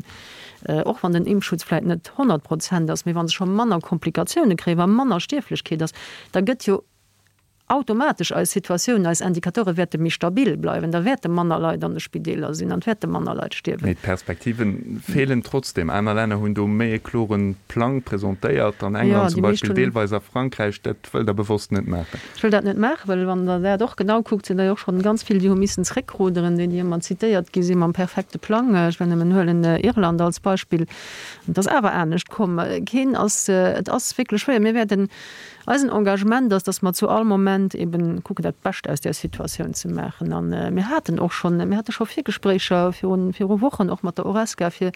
och wann den Impfschutz vläicht net 100 Prozent ass, mee wa se scho manner Komplikatioune kréien, wa manner Stierflechkeet ass, da gëtt jo automatesch eis Situatioun, eis Indicateure wäerte méi stabil bleiwen, da wäerte manner Leit an de Spideeler sinn an et wäerte manner Leit stierwen. Mee d'Perspektive feelen trotzdem. Aner Länner hunn do méi e klore Plang presentéiert, an England zum Beispill, deelweis a Frankräich. Dat wëllt Der bewosst net maachen. Ech wëll dat net maachen, well wann Der dat och genau kuckt, sinn der jo och schonn ganz vill, déi hu missen zréckruderen, déi, déi ëmmer zitéiert gi si mam perfekte Plang. Ech wëll nëmmen huelen Irland als Beispill. Et ass awer anescht komm. Keen ass, et ass wierklech schwéier. Mir wäerten Eisen Engagement ass, dass mer zu all Moment eben kucken, dat Bescht aus där Situatioun ze maachen. A mir haten och schonn, mir hate scho Virgespréicher virun, viru Wochen och mat der Horesca, fir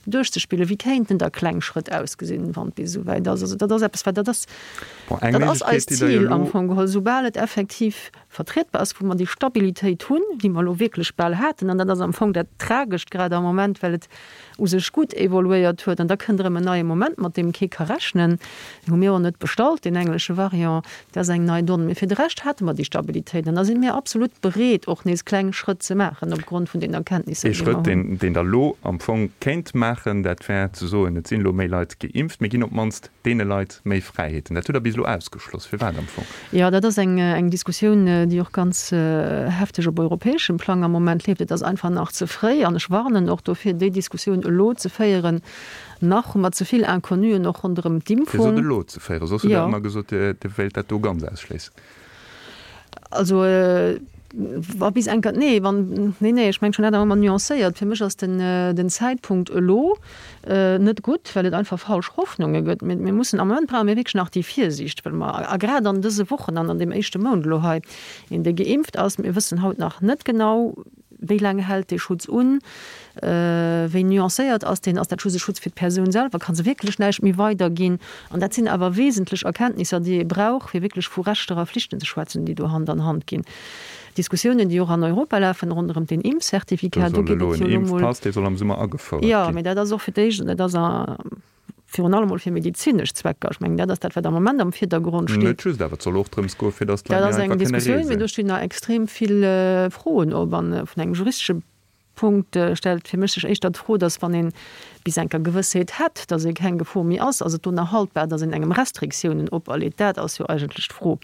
duerchzespillen, wéi kéinten da kleng Schrëtt ausgesinn, wann et bis esou wäit ass. Also dat ass eppes, wat, dat ass, dat ass eist Zil am Fong geholl, soubal et effektiv vertrietbar ass, wou mer déi Stabilitéit hunn, déi mer elo wierklech bal haten, an dat ass am Fong dat Tragescht grad am Moment, well et u sech gutt evoluéiert huet, an da kënnt erëm en neie Moment, mat deem kee ka rechnen, deen hu mir och net bestallt, deen englesche Variant, dat ass eng nei Donn. Mee fir de Rescht hate mer déi Stabilitéit, an da si mir absolut bereet, och nees kleng Schrëtt ze maachen opgrond vun den Erkenntnisser, Ee déi mer Schrëtt, hunn. deen Der elo am Fong kéint maachen, dat wär ze soen, et sinn elo méi Leit geimpft, mir ginn op d'mannst deene Leit méi Fräiheeten. Dat hutt Der bis elo ausgeschloss. Firwat am Fong? Jo, dat ass eng, eng Diskussioun, déi och ganz hefteg op europäeschem Plang am Moment leeft. Et ass einfach nach ze fréi an ech warnen och dofir, déi Diskussioun elo ze féieren. Nach hu mer ze vill Inconnuen och ronderëm d'Impfung. Fir se elo ze féieren? Soss hutt Der ëmmer gesot, Dir wéilt dat do ganz ausschléissen. Also, wa bis enker, nee, wann, nee, nee, ech mengen schon dat awer ëmmer nuancéiert. Fir mech ass den, den Zäitpunkt elo net gutt, well et einfach falsch Hoffnunge gëtt. Mir, mir mussen, am Moment brauche mir wierklech nach déi Virsiicht, well mer, a grad an dëse Wochen an an deem éischte Mount elo hei, een dee geimpft ass, mir wëssen haut nach net genau. Wéi laang hält dee Schutz un? Wéi nuancéiert ass deen? Ass dat just e Schutz fir d'Persoun selwer? Ka se wierklech näischt méi weiderginn? An dat sinn awer wesentlech Erkenntnisser, déi ee brauch, fir wierklech vu Rechter a Flichten ze schwätzen, déi do Hand an Hand ginn. Diskussiounen, déi och an Europa lafen ronderëm den Impfcertificat, do geet et jo elo mol. Dee soll am Summer agefouert ginn. Jo, mee dat ass och fir d'éischt, an dat ass virun allem mol fir medezinesch Zwecker. Ech mengen, dat ass dat, wat am Moment am Virdergrond steet. Net just, awer et soll och drëms goen, fir datt d'Leit méi einfach kënne reesen. Dat ass eng Diskussioun, mee do stinn nach extrem vill Froen op. An vun engem juristesche Punkt stellt fir mech sech éischter d'Fro, datt wann ee bis enker Gewëssheet hätt, datt ee keng Gefor méi ass, ass et do nach haltbar, datt een engem Restriktiounen operleet? Dat ass jo eigentlech d'Fro.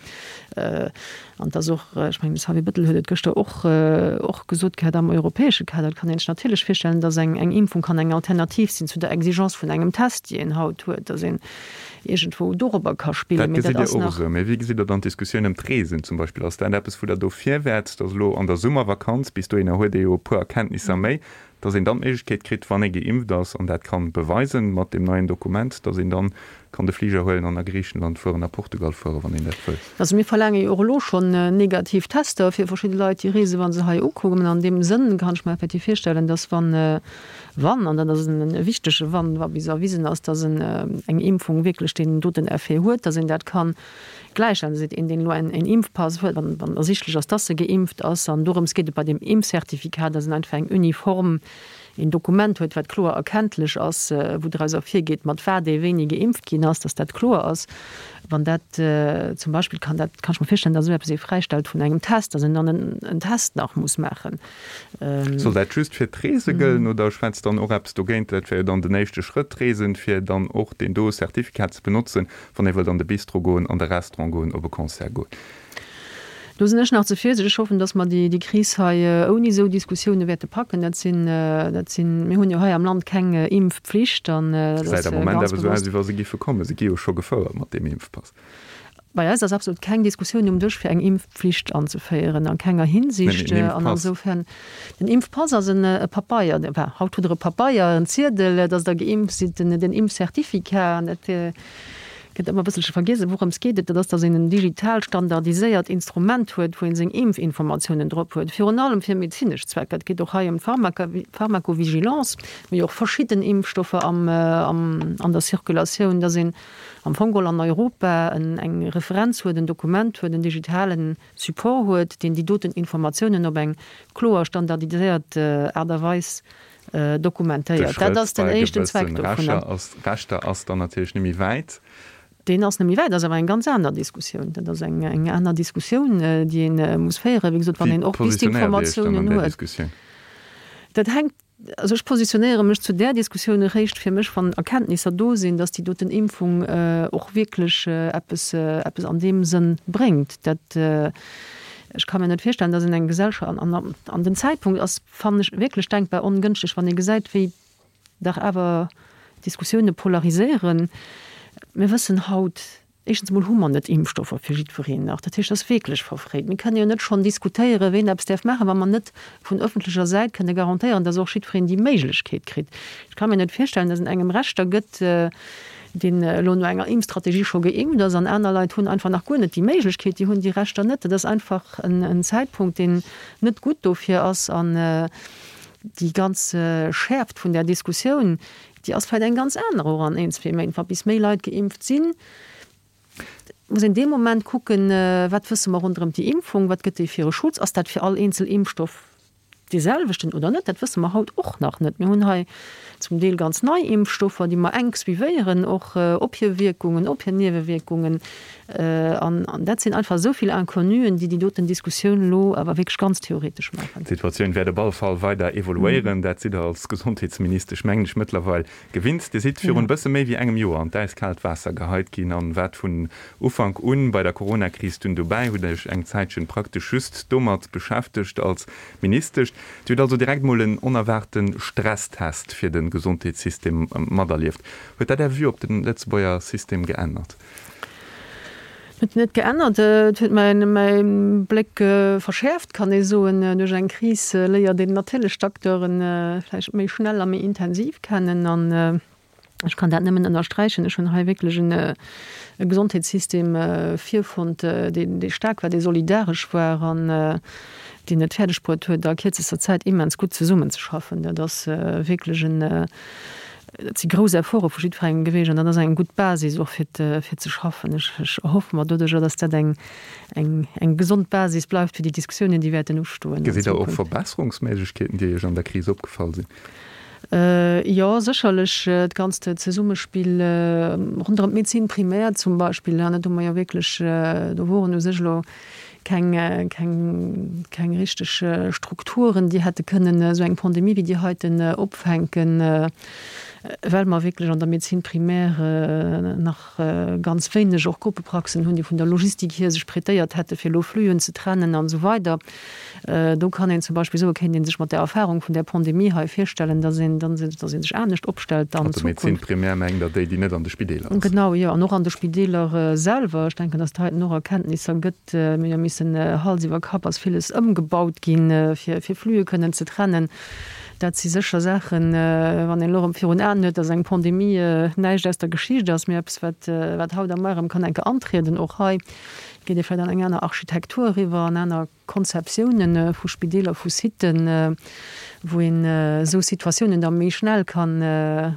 An et ass och, ech mengen, de Xavier Bettel huet et gëschter och, och gesot gehat, am europäesche Kader, et kann een sech natierlech virstellen, datt eng, eng Impfung kann eng Alternativ sinn zu der Exigence vun engem Test, déi een haut huet, datt een iergendwou dorobber ka spillen. Dat gesitt Dir och esou. Mee wéi gesitt Der dann d'Diskussioun ëm d'Reesen zum Beispill? Ass dat eppes, wou Der dofir wäert, datt elo an der Summervakanz, bis dohinner huet ee jo e puer Erkenntnisser méi, dass een dann d'Méiglechkeet kritt, wann ee geimpft ass an dat kann beweisen mat deem neien Dokument, dass een dann kann de Fliger huelen an a Griichenland fueren, a Portugal fueren, wann een dat wëll. Also mir verlaange jo och elo schonn negativ Tester fir verschidde Leit, déi reesen, wa se hei ukommen. An deem Sënn kann ech mer effektiv virstellen, dass wann, wann, an dat ass e wichtege wann, wa bis erwisen ass, dass eng Impfung wierklech deen doten Effet huet, dass een dat kann Gläichstellen, seet een, deen elo en Impfpass huet, wann wann ersichtlech ass, dass e geimpft ass. An dorëms geet et bei deem Impfcertificat, dass en einfach eng uniform, een Dokument huet, wat kloer erkenntlech ass, wou draus ervirgeet, mat wat ee wéini geimpft ginn ass, dass dat kloer ass. Wann dat zum Beispill kann dat, kann ech mer virstellen, dass esou eppes ee fräistellt vun engem Test, dass een dann en Test nach muss maachen. Soll dat just fir d'Reese gëllen oder schwätzt dann och eppes dogéint? Dat wär jo dann den éischte Schrëtt, d'Reesen, fir dann och deen do Certificat ze benotzen, wann ee wëllt an de Bistro goen, an de Restaurant goen, op e Concert goen. Do sinn ech nach ze virsichteg. Ech hoffen, datt mer déi Kris hei ouni esou Diskussioune wäerte packen. Dat sinn, dat sinn, mir hunn jo hei am Land keng Impfpflicht an dat ass ganz bewosst. Gesäit am Moment awer esou aus, wéi wa se giffe kommen. Se gi jo scho gefouert mat deem Impfpass. Bei eis ass absolut keng Diskussioun um Dësch, fir eng Impfpflicht anzeféieren, a kenger Hinsicht. An insofern, den Impfpass ass en e Papeier, enfin, haut hutt Der e Papeier, en Ziedel, dass Der geimpft sidd, den Impfcertificat. An dat gëtt ëmmer e bësselche vergiess, wourëms geet et? Dat ass, dass een en digital standardiséiert Instrument huet, wou ee seng Impfinformatiounen drop huet, virun allem fir medezinesch Zwecker. Et geet och hei ëm d'Pharmacovigilance, mir hu jo och verschidden Impfstoffer am, an der Circulatioun, dass een am Fong geholl an Europa eng Referenz huet, en Dokument huet, en digitale Support huet, deen déi doten Informatiounen op eng kloer standardiséiert Aart a Weis dokumentéiert. Dat ass den éischten Zweck dovunner. De Schrëtt bei gewëssen Rechter ass dann natierlech net méi wäit. Deen ass net méi wäit, ass awer eng ganz aner Diskussioun. Dat ass eng aner Diskussioun, déi ee muss féieren, wéi gesot, wann een och bis d'Informatiounen huet. Dat hänkt Also ech positionéiere mech zu där Diskussioun eréischt fir mech, wann Erkenntnisser do sinn, datt déi doten Impfung och wierklech eppes, eppes an deem Sënn bréngt. Dat, ech ka mir net virstellen, datt een eng Gesellschaft, an, an den Zäitpunkt ass, fannen ech, wierklech denkbar ongënschteg, wann ee gesäit, wéi dach awer d'Diskussioune polariséieren. Mir wëssen haut Éischtens emol hu mer net Impfstoffer fir jiddwereen nach. Dat heescht, et ass wierklech verfréit. Mir kënne jo net schonn diskutéieren, ween eppes däerf maachen, wa mer net vun ëffentlecher Säit kënne garantéieren, dass och jiddwereen déi Méiglechkeet kritt. Ech ka mir net virstellen, dass en engem Rechter gëtt, deen elo no enger Impfstrategie scho geimpft ass, an aner Leit hunn einfach nach guer net déi Méiglechkeet, déi hunn déi Rechter net. Dat ass einfach en Zäitpunkt, deen net gutt dofir ass. An déi ganz Schäerft vun där Diskussioun, Déi ass vläicht eng ganz aner och an een, zwee Méint, wa bis méi Leit geimpft sinn. Muss een dee Moment kucken, wat wësse mer ronderëm déi Impfung, wat gëtt déi fir e Schutz, ass dat fir all eenzel Impfstoff dee selwechten oder net? Dat wësse mer haut och nach net. Mir hunn hei zum Deel ganz nei Impfstoffer, déi mer enk suivéieren, och op hir Wierkungen, op hir Niewewierkungen. An dat sinn einfach esou vill Inconnuen, déi déi doten Diskussioun elo awer wierklech ganz theoretesch maachen. D'Situatioun wäert op alle Fall weider evoluéieren. Dat sidd Der als Gesondheetsministesch, mengen ech, mëttlerweil gewinnt. Dir sidd virun e bësse méi wéi engem Joer an d'äiskaalt Waasser geheit ginn an waart vun Ufank un bei der Coronakris dunn dobäi, hutt Iech eng Zäitchen praktesch just domat beschäftegt als Ministesch. Dir hutt also direkt mol en onerwaarte Stresstest fir de Gesondheetssystem materlieft. Huet dat Är Vue op de Lëtzebuerger System geännert? Huet net geännert. Et huet mäin mäi Bléck verschäerft, kann ee soen. Duerch eng Kris léiert een natierlech d'Acteuren vläicht méi schnell a méi intensiv kennen. An. Ech kann dat nëmmen ënnersträichen. Ech hunn hei wierklech en e Gesondheetssystem virfonnt, deen, dee staark war, dee solidaresch war an deen et fäerdeg bruet huet, a kierzester Zäit immens gutt zesummenzeschaffen. Dat ass wierklech en, dat si grouss Efforte vu jiddwerengem gewiescht an dat ass eng gutt Basis och fir, fir ze schaffen. Ech, ech erhoffe mer doduerjer, dass dat eng, eng, eng gesond Basis bleift fir déi Diskussiounen, déi wäerten ustoen an Gesitt Der och Zukunft. Verbesserungsméiglechkeeten, déi Iech an der Kris opgefall sinn? Jo, sécherlech d'ganzt Zesummespill ronderëm d'Médecine primaire zum Beispill, dat hu mer jo wierklech, do woren u sech elo keng, keng, keng richteg Strukturen, déi hätte kënnen esou eng Pandemie wéi déi heiten opfänken, well mer wierklech an der Médecine primaire nach ganz wéineg och Gruppepraxen hunn, déi vun der Logistik hier sech prêtéiert hätte fir elo Fluen ze trennen an esou weider. Do kann een zum Beispill soen, kéint ee sech mat der Erfahrung vun där Pandemie hei virstellen, dass een, dass ee sech anescht opstellt an Zukunft. Also Médecine primaire mengt Der déi, déi net an de Spideeler ass? Genau, jo, an och an de Spideeler selwer. Ech denken, dass et heiten och Erkenntnisser gëtt. Mir hu jo missen Hals iwwer Kapp ass villes ëmgebaut ginn, fir Flue kënnen ze trennen. Dat si sécher Saachen, wann een elo erëm virun Aen huet, dass eng Pandemie näischt aus der Geschicht ass, mee eppes, wat, wat haut a muer erëm kann eng Kéier antrieden. Och hei geet ee vläicht an eng aner Architektur eriwwer, an aner Konzeptiounen vu Spideeler, vu Siten, wou een esou Situatiounen da méi schnell kann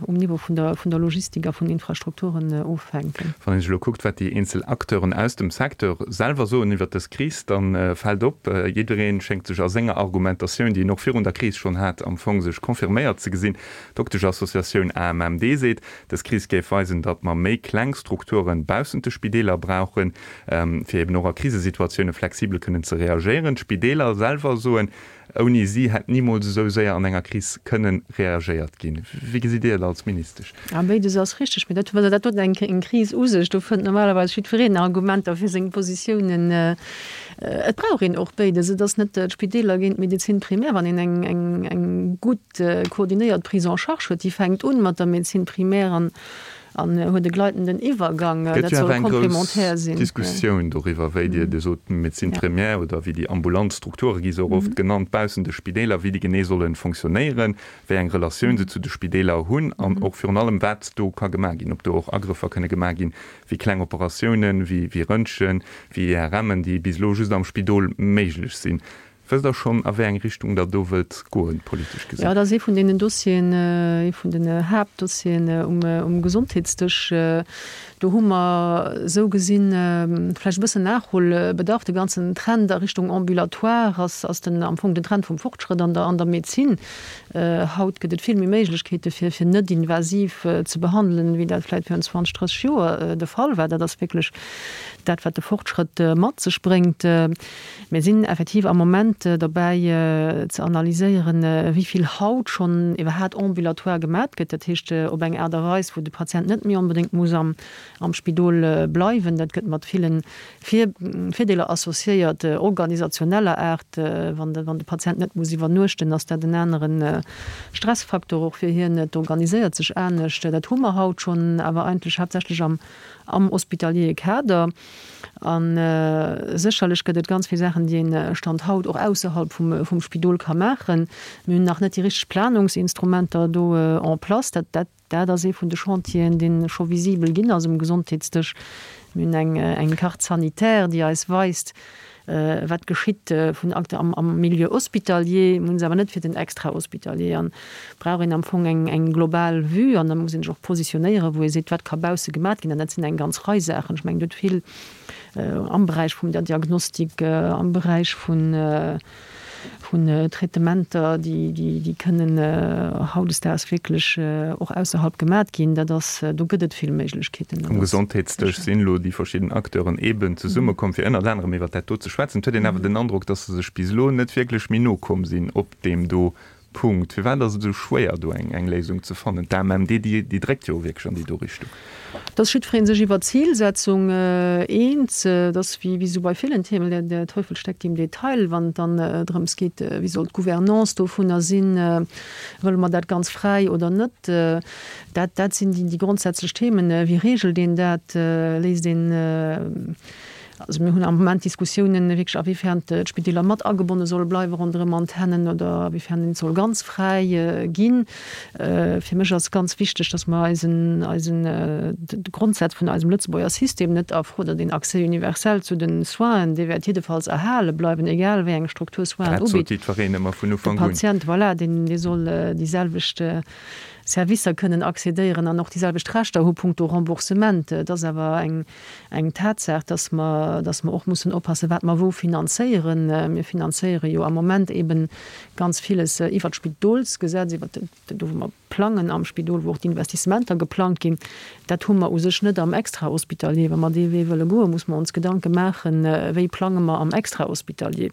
um Niveau vun der, vun der Logistik a vun Infrastrukturen offänken. Wann een sech elo kuckt, wat déi eenzel Acteuren aus dem Secteur selwer soen iwwert dës Kris, da fält op, jidderee schéngt sech a senger Argumentatioun, déi en och virun der Kris schonn hat, am Fong sech confirméiert ze gesinn. D'Dokteschassociatioun AMMD seet, dës Kris géif weisen, datt mer méi kleng Strukture baussent de Spideeler brauchen, fir eben och a Krisesituatioune flexibel kënnen ze reagéieren. D'Spideeler selwer soen, Ouni si hätt nimools esou séier an enger Kris kënnen reagéiert ginn. Wéi gesitt Dir et als Ministesch? A béides ass richteg. Mee dat, dat huet eng eng Kris u sech. Do fënnt normalerweis jiddwereen Argumenter fir seng Positiounen. Et brauch een och béides. Et ass net d'Spideeler géint d'Médecine primaire. Wann een eng eng eng gutt koordinéiert Prise en charge huet, déi fänkt un mat der Médecine primaire an An huet e gleitenden Iwwergang. Dat soll komplementär sinn. Gëtt jo awer eng grouss Diskussioun doriwwer, wéi Dir, Dir sot Médecine primaire oder wéi déi ambulant Strukture gi se och oft genannt, baussent de Spideeler, wéi déi genee solle fonctionnéieren, wéi eng Relatioun se zu de Spideeler hunn an och virun allem, wat do ka gemaach ginn, ob do och Agrëffer kënne gemaach ginn, wéi kleng Operatiounen, wéi Röntgen, wéi IRMen, déi bis elo just am Spidol méiglech sinn. Wësst Der schonn, a wéi eng Richtung Der do wëllt goen, politesch gesinn? Jo, dat ass ee vun deenen Dossieren, ee vun den Haaptdossieren um Gesondheetsdësch. Do hu mer esou gesinn vläicht e bëssen Nachholbedarf. De ganzen Trend a Richtung Ambulatoire ass, ass den, am Fong den Trend vum Fortschrëtt an der, an der Medezin. Haut gëtt et vill méi Méiglechkeete fir, fir net invasiv ze behandelen, wéi dat vläicht virun 20, 30 Joer de Fall war. Dat ass wierklech dat, wat de Fortschrëtt mat sech bréngt. Mir sinn effektiv am Moment dobäi ze analyséieren, wéi vill haut schonn iwwerhaat ambulatoire gemat gëtt, dat heescht op eng Aart a Weis, wou de Patient net méi onbedéngt muss am Spidol bleiwen. Dat gëtt mat ville Virdeeler associéiert, organisationeller Aart. Wann de Patient net muss iwwernuechten, ass dat en anere Stressfaktor och fir hien. Et organiséiert sech anescht. Dat hu mer haut schonn, awer eigentlech haaptsächlech am hospitaliere Kader. A sécherlech gëtt et ganz vill Saachen, déi een Stand haut och ausserhalb vum Spidol ka maachen. Mir hunn nach net déi richteg Planungsinstrumenter do en place. Dat, dat, dat ass ee vun de Chantieren, dee scho visibel ginn ass um Gesondheetsdësch. Mir hunn eng, eng Carte sanitaire, déi eis weist, wat geschitt vun Akte am, am Milieu hospitalier. Mir hunn se awer net fir den Extrahospitalier. An brauch een am Fong eng, eng global Vue an da muss een sech och positionéieren, wou ee seet, wat ka bausse gemat ginn. An dat sinn eng ganz Rei Saachen. Ech mengen, et huet vill am Beräich vum der Diagnostik, am Beräich vun, vun Traitementer, déi, déi, déi kënnen hautdesdaags wierklech och ausserhalb gemat ginn. Dat ass, do gëtt et vill Méiglechkeeten. Um Gesondheetsdësch sinn elo déi verschidden Acteuren eeben zesummekomm, fir ënnert anerem iwwert dat do ze schwätzen. Et huet een awer den Androck, datt se sech bis elo net wierklech méi no komm sinn op deem do Punkt. Firwat ass et esou schwéier, do eng Léisung ze fannen? D'AMMD, déi dréckt jo wierklech an déi do Richtung. Et ass jiddweree sech iwwer d'Zilsetzung eens. Et ass wéi esou bei villen Themen, der Teufel steckt im Detail, wann et dann drëms geet, wéi soll d'Gouvernance dovunner sinn, wëlle mer dat ganz fräi oder net. Dat, dat sinn déi grondsätzlech Themen. Wéi reegelt een dat? Léisst een. Also mir hunn am Moment Diskussiounen wierklech awéifern d'Spideeler mat agebonne solle bleiwe ronderëm Antennen oder awéifern een et soll ganz fräi ginn. Fir mech ass ganz wichteg, datt mer eisen, eisen, de Grondsaz vun eisem Lëtzebuerger System net a Fro, oder den Accès universel zu den Soinen, dee wäert jiddefalls erhale bleiwen, egal wéi eng Struktur Soinen Dat sot ubitt. jiddwereen ëmmer vun De Ufank un. Patient, voilà, deen, dee soll déi selwecht Servicer kënnen accédéieren an och déi selwecht Rechter hu punkto Remboursement. Et ass awer eng, eng Tatsaach, dass mer, dass mer och mussen oppassen, wat mer wou finanzéieren. Mir finanzéiere jo am Moment eben ganz villes iwwert d'Spidolsgesetz, iwwert do wou mer plangen am Spidol, wou och d'Investissementer geplangt ginn. Dat hu mer u sech net am Extrahospitalier. Wa mer dee Wee wëlle goen, muss mer ons Gedanke maachen, wéi plange mer am Extrahospitalier,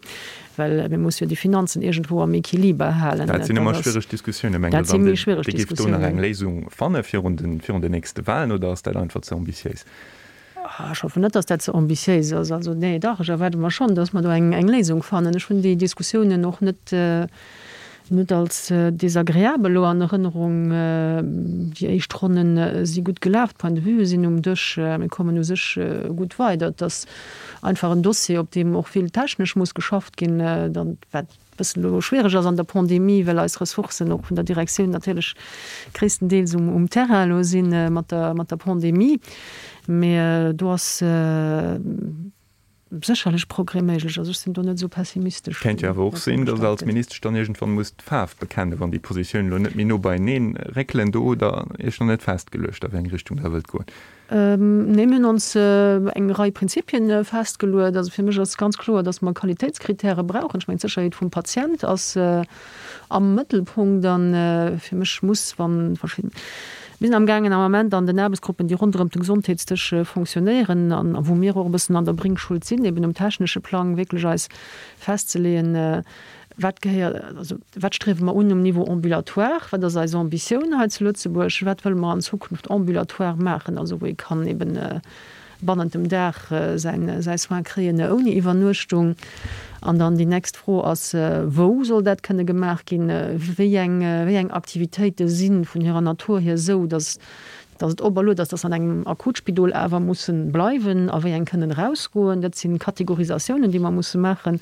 well mir musse jo déi Finanzen iergendwou am Equiliber halen. Dat sinn ëmmer schwiereg Diskussiounen. Mengt Der dann, Dir géift do nach eng Léisung fanne virun den nächste Wahlen oder ass dat einfach ze ambitiéis? Ech hoffen net, datt dat ze ambitiéis ass. Also, nee, dach, ech erwaarde mer schonn, datt mer do eng Léisung fannen. Ech hunn déi Diskussiounen och net, net als desagreabel elo an Erënnerung. Déi éischt Ronne si gutt gelaf, d'Points de vue sinn um Dësch, mir kommen u sech gutt weider. Et ass einfach en Dossier, op deem och vill technesch muss geschafft ginn, dann, wat bëssen elo schwiereg ass an der Pandemie, well eis Ressourcen och vun der Direktioun natierlech gréisstendeels um Terrain elo si mat der mat der Pandemie. Mee do ass sécherlech Progrès méiglech. Also ech sinn do net esou pessimistesch. Kéint jo awer och sinn, datt Der als Ministesch dann iergendwann musst d'Faarf bekennen, wann déi Positiounen elo net méi no beieneen réckelen. Do hutt Der Iech nach net festgeluecht, a wéi eng Richtung Der wëllt goen. Nee, mir hunn ons eng Rei Prinzipien festgeluet. Also fir mech ass ganz kloer, dass mer Qualitéitskritäre brauchen. Ech mengen, d'Sécherheet vum Patient ass am Mëttelpunkt. A fir mech muss, wa verschidden, mir sinn amgaangen am Ament an den Aarbechtsgruppen, déi ronderëm de Gesondheetsdësch fonctionnéieren an wou mir och e bëssen an der Bringschuld sinn, eben um technesche Plang wierklech eis festzeleeën, Wat gehéiert, also wat striewe mer un um Niveau ambulatoire? Wat ass eis Ambitioun hei zu Lëtzebuerg? Wat wëlle mer an Zukunft ambulatoire maachen, also wou ee kann eben bannent dem Dag säin, säi Soin kréien ouni Iwwernuechtung? An dann déi nächst Fro ass, Wou soll dat kënne gemaach ginn? Wéi eng, wéi eng Aktivitéite si vun hirer Natur hier esou, datt Dass et operluet ass, dass se an engem Akutspidol awer mussen bleiwen a wéi eng kënnen erausgoen. Dat sinn Kategorisatiounen, déi mer musse maachen.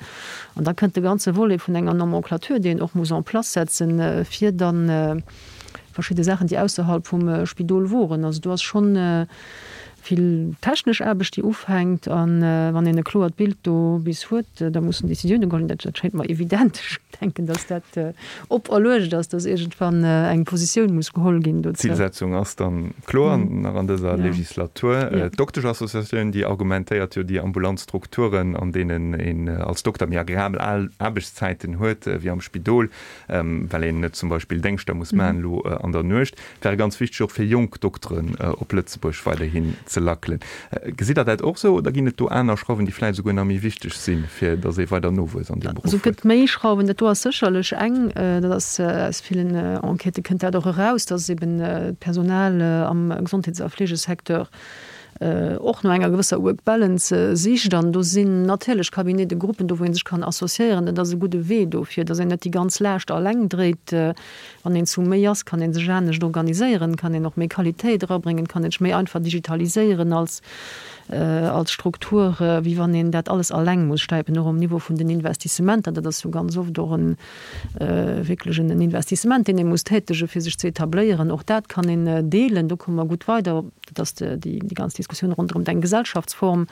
An da kënnt de ganze Volet vun enger Nomenclature, déi een och muss en place setzen, fir da verschidde Saachen, déi ausserhalb vum Spidol woren. Also do ass schonn vill technesch Aarbecht, déi ufänkt. A wann een e kloert Bild do bis huet, da mussen Décisioune geholl ginn. Dat schéngt mer evident. Ech denken, dass dat operluecht ass, dass iergendwann eng Positioun muss geholl ginn dozou. D'Zilsetzung ass dann kloer, nach an dëser Legislatur. D'Dokteschassociatioun, déi argumentéiert jo, déi ambulant Strukturen, an deenen een als Dokter méi agreabel Aarbechtszäiten huet wéi am Spidol, well een net zum Beispill Déngschter muss maachen elo an der Nuecht, wäre ganz wichteg och fir jonk Dokteren op Lëtzebuerg weiderhin ze lackelen. Gesitt Der dat och esou oder ginn et do aner Schrauwen, déi vläicht esouguer nach méi wichteg sinn, fir datt ee weider Nowuess an deem Beruff huet? Also et gëtt méi Schrauwen. Dat do ass sécherlech eng. Dat ass aus villen Enquêtë kënnt dat och eraus, datt eben d'Personal am Gesondheets a Fleegesecteur och no enger gewësser Work Balance sicht. An do sinn natierlech Cabinets de Gruppen do, wou ee sech kann associéieren. Dat ass e gudde Wee dofir, datt een net déi ganz Laascht alleng dréit. Wann een zu méi ass, kann ee sech anescht organiséieren, kann een och méi Qualitéit erabréngen, kann een sech méi einfach digitaliséieren als als Struktur, wéi wann een dat alles alleng muss stäipen, och um Niveau vun den Investissementer. Dat ass jo ganz oft och e wierklech en Investissement, deen ee muss tätegen, fir sech ze etabléieren. Och dat kann een deelen, do komme mer gutt weider. Dat ass déi ganz Diskussioun ronderëm eng Gesellschaftsform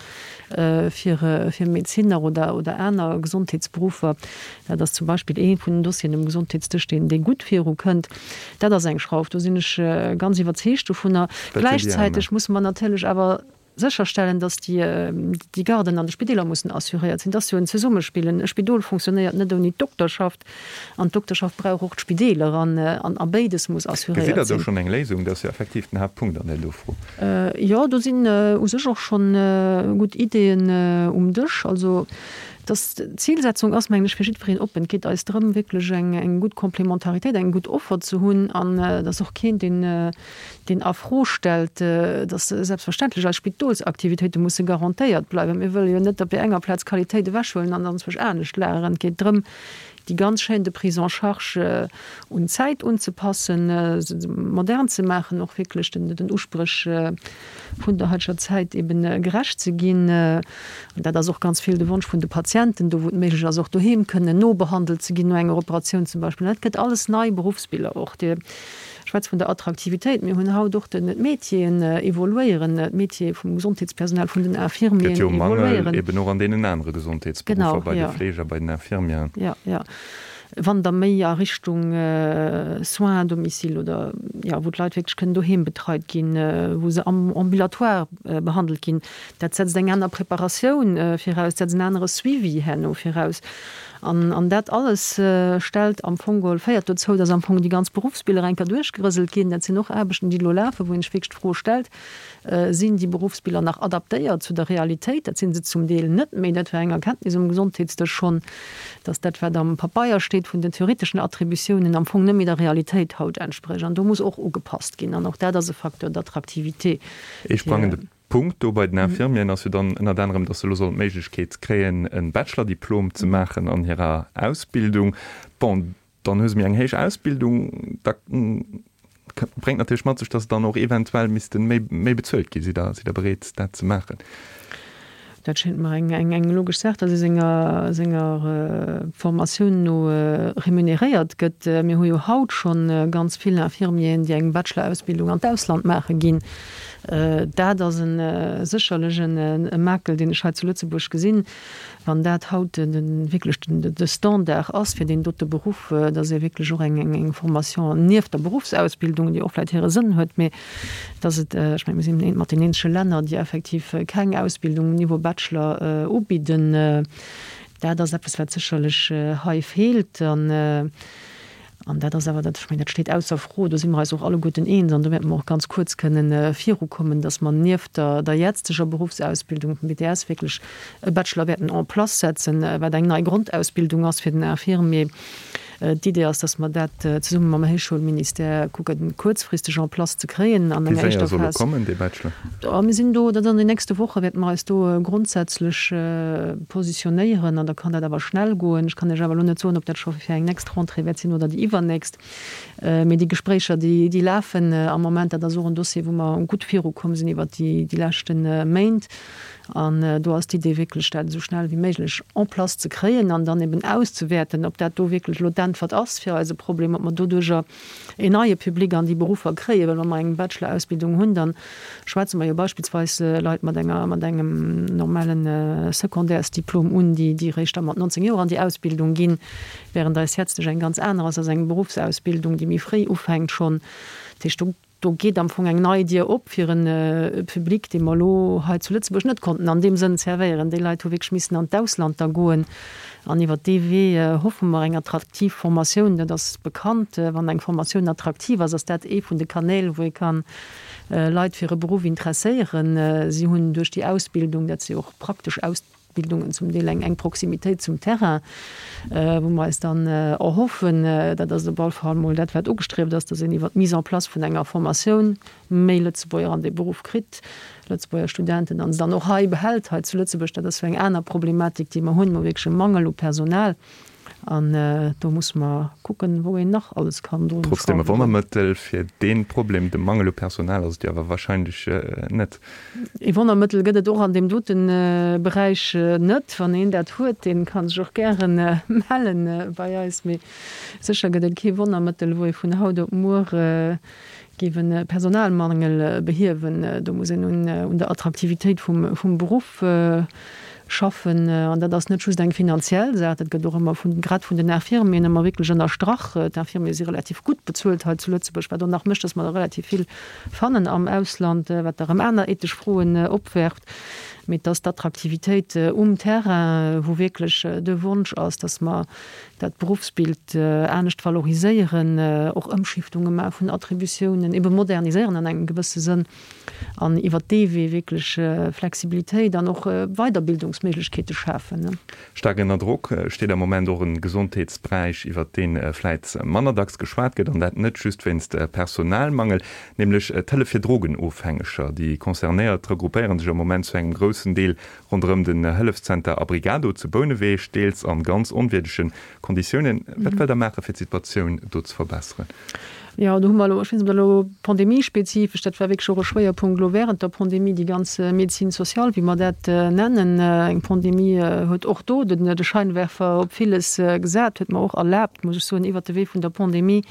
fir fir Medezinner oder oder aner Gesondheetsberuffer. Dat ass zum Beispill ee vun den Dossieren um Gesondheetsdësch, deen dee gutt virukënnt. Dat ass eng Schrauf, do sinn ech ganz iwwerzeegt dovunner. Gläichzäiteg musse mer natierlech awer sécherstellen, datt déi déi Garden an de Spideeler mussen assuréiert sinn. Dat ass jo en Zesummespill. E Spidol fonctionnéiert net ouni d'Dokterschaft an d'Dokterschaft brauch och d'Spideeler an a béides muss assuréiert sinn. Gesitt Der do schonn eng Léisung? Dat ass jo effektiv den Haaptpunkt an där do Fro. Jo, do sinn u sech och schonn gutt Ideeën um Dësch. Also, dass d'Zilsetzung ass, mengen ech, fir jiddwereen oppen. Et geet eis drëm, wierklech eng gutt Complémentaritéit, eng gutt Offer ze hunn an dass och keen, deen, deen a Fro stellt, dass selbstverständlech eis Spidolsaktivitéite musse garantéiert bleiwen. Mir wëlle jo net op där enger Plaz Qualitéit ewechhuelen an dann zwousch anescht lageren. Et geet drëm,. déi ganz Chaîne de prise en charge un d'Zäit unzepassen, se modern ze maachen, och wierklech den Uspréch vun der haiteger Zäit eben gerecht ze ginn. An dat ass och ganz vill de Wonsch vun de Patienten, do wou et méiglech ass, och doheem kënnen nobehandelt ze ginn no enger Operatioun zum Beispill. Dat gëtt alles nei Beruffsbiller och. Dir schwätzt vun der Attraktivitéit. Mir hunn haut och den, d'Métieren evoluéieren, d'Métiere vum Gesondheetspersonal, vun den Infirmieren evoluéieren. Gëtt jo Mangel eben och an deenen anere Gesondheetsberuffer, bei de Fleeger, bei den Infirmieren. Jo, jo. Wann der méi a Richtung Soins à domicile oder, jo, wou d'Leit wierklech kënnen doheem betreit ginn, wou se am Ambulatoire behandelt ginn, dat setzt eng aner Preparatioun viraus, setzt en anere Suivi herno viraus. An, an dat alles stellt am Fong geholl, féiert dozou, dass am Fong déi ganz Beruffsbiller eng Kéier duerchgerëselt ginn. Dat sinn och Aarbechten, déi elo lafen, wou een sech wierklech d'Fro stellt, Sinn déi Beruffsbiller nach adaptéiert zu der Realitéit? Dat si se zum Deel net méi. Dat war eng Erkenntnis um Gesondheetsdësch schonn, dass dat, wat am Pabeier steet vun den theoreteschen Attributiounen, am Fong net méi der Realitéit haut entsprécht. An do muss och ugepasst ginn. An och dat ass e Facteur d'attractivité. Ee sprangende Punkt do bei den Infirmieren ass jo dann ënnert anerem, dass se elo sollen d'Méiglechkeet kréien, e Bachelor-Diplom ze maachen an hirer Ausbildung. Bon, Dann hu se méi eng héich Ausbildung, da bréngt natierlech mat sech, datt se dann och eventuell misste méi méi bezuelt ginn. Sidd Der, sidd Der bereet, dat ze maachen? Dat schéngt mer eng, eng, eng logesch Saach, datt ee senger, senger Formatioun no remuneréiert gëtt. Mir hu jo haut scho ganz vill Infirmieren, déi eng Bachelor-Ausbildung an d'Ausland maache ginn. Dat ass e sécherlech e Makel, deen ech hei zu Lëtzebuerg gesinn. Wann dat haut wierklech de Standard ass fir deen dote Beruff, dass ee wierklech och eng Formation nieft der Beruffsausbildung, déi och vläicht hire Sënn huet, mee dass et, ech mengen, mir sinn eent mat den eenzege Länner, déi effektiv keng Ausbildung um Niveau Bachelor ubidden, dat ass eppes, wat sécherlech hei feelt. An dat ass awer, dat, ech mengen, dat steet ausser Fro, do si mer eis och alleguerten eens an do wäerte mer och ganz kuerz kënnen virukommen, dass mer nieft der, der jetzteger Beruffsausbildung vum BTS wierklech e Bachelor wäerten en place setzen, wat eng nei Grondausbildung ass fir den Infirmier. D'Idee ass, dass mer dat zesumme mam Héichschoulministère kucken, kuerzfristeg en place ze kréien an enger éischter Phas. Wéi séier soll e kommen, dee Bachelor? Mir sinn do, dat an den nächste Woche wäerte mer eis do grondsätzlech positionéieren an da kann dat awer schnell goen. Ech kann Iech awer elo net soen, ob dat scho fir eng nächst Rentrée wäert sinn oder déi iwwernächst. Mee déi Gespréicher, déi, déi lafen am Moment. Dat ass och en Dossier, wou mer gutt virukomm sinn iwwert déi, déi leschte Méint. An do ass d'Idee wierklech, dat esou schnell wéi méiglech en place ze kréien an dann eben auszewäerten, ob dat do wierklech elo d'Äntwert ass fir eise Problem, ob mer doduerjer een neie Public an déi Beruffer kréien. Well wa mer eng Bachelor-Ausbildung hunn, da schwätze mer jo beispillsweis Leit mat enger, mat engem normale Secondaires-Diplom un, déi, déi eréischt da mat 19 Joer an déi Ausbildung ginn, während eis jetzteg eng ganz aner ass, ass eng Beruffsausbildung, déi méi fréi ufänkt schonn. Dat heescht, do Do geet am Fong eng nei Dier op fir e Public, dee mer elo hei zu Lëtzebuerg net konnten an deem Sënn servéieren. Déi Leit hu wierklech missen an d'Ausland da goen. An iwwert dee Wee hoffe mer eng attraktiv Formatioun, dat ass bekannt, wann eng Formatioun attraktiv ass, ass dat ee vun de Kanäl, wou ee ka Leit fir e Beruff interesséieren. Si hunn duerch déi Ausbildung, dat si och praktesch Aus. Bildungen zum Deel eng enk Proximitéit zum Terrain, wou mer eis dann erhoffen, dat ass op alle Fall mol dat, wat ugestrieft ass, dass een iwwert d'Mise en place vun enger Formatioun méi Lëtzebuerger an dee Beruff kritt, Lëtzebuerger Studenten, an se dann och hei behält, hei zu Lëtzebuerg. Dat ass jo eng aner Problematik, déi mer hunn. Mer hu wierklech e Mangel u Personal an do musse mer kucken, wou een nach alles kann drun Trotzdem e schrauwen. Wonnermëttel fir dee Problem, de Mangel u Personal, ass et jo awer wahrscheinlech net. Ee Wonnermëttel gëtt et och an deem dote Beräich net. Wann een dat huet, dee ka sech och gäre melle bei eis. Mee sécher gëtt et kee Wonnermëttel, wou ee vun haut op muer géif e Personalmangel behiewen. Do muss een un der Attraktivitéit vum Beruff schaffen. An dat ass net just eng finanziell Saach, dat gëtt och ëmmer vun, grad vun den Infirmieren ëmmer wierklech ënnerstrach. D'Infirmiere si relativ gutt bezuelt hei zu Lëtzebuerg, wat och nach mécht, datt mer der relativ vill fannen am Ausland, wat da rëm aner ethesch Froen opwerft. Mee et ass d'Attraktivitéit um Terrain, wou wierklech de Wonsch ass, datt mer dat Beruffsbild anescht valoriséieren, och Ëmschiftunge maache vun Attributiounen, ebe moderniséieren an engem gewësse Sënn. an iwwert dee Wee wierklech Flexibilitéit an och Weiderbildungsméiglechkeete schafen. Staark ënner Drock steet am Moment och e Gesondheetsberäich, iwwert dee vläit manner dacks geschwat gëtt, an dat net just wéinst Personalmangel, nämlech d'Hëllef fir Drogenofhängeger. Déi Concernéiert regroupéiere sech am Moment zu engem groussen. groussen Deel ronderëm den Hëllefszenter Abrigado zu Bouneweg, deels an ganz onwierdege Konditiounen. Wat wëllt Der maachen, fir d'Situatioun do ze verbesseren? Jo, do hu mer elo, ech weess net, ob dat elo pandemiespezifesch, dat war wierklech och e Schwéierpunkt elo während der Pandemie, déi ganz Médecine sociale, wéi mer dat nennen. Eng Pandemie huet och do de Scheinwerfer op villes gesat, huet mer och erlaabt, muss ech soen, iwwert de Wee vun der Pandemie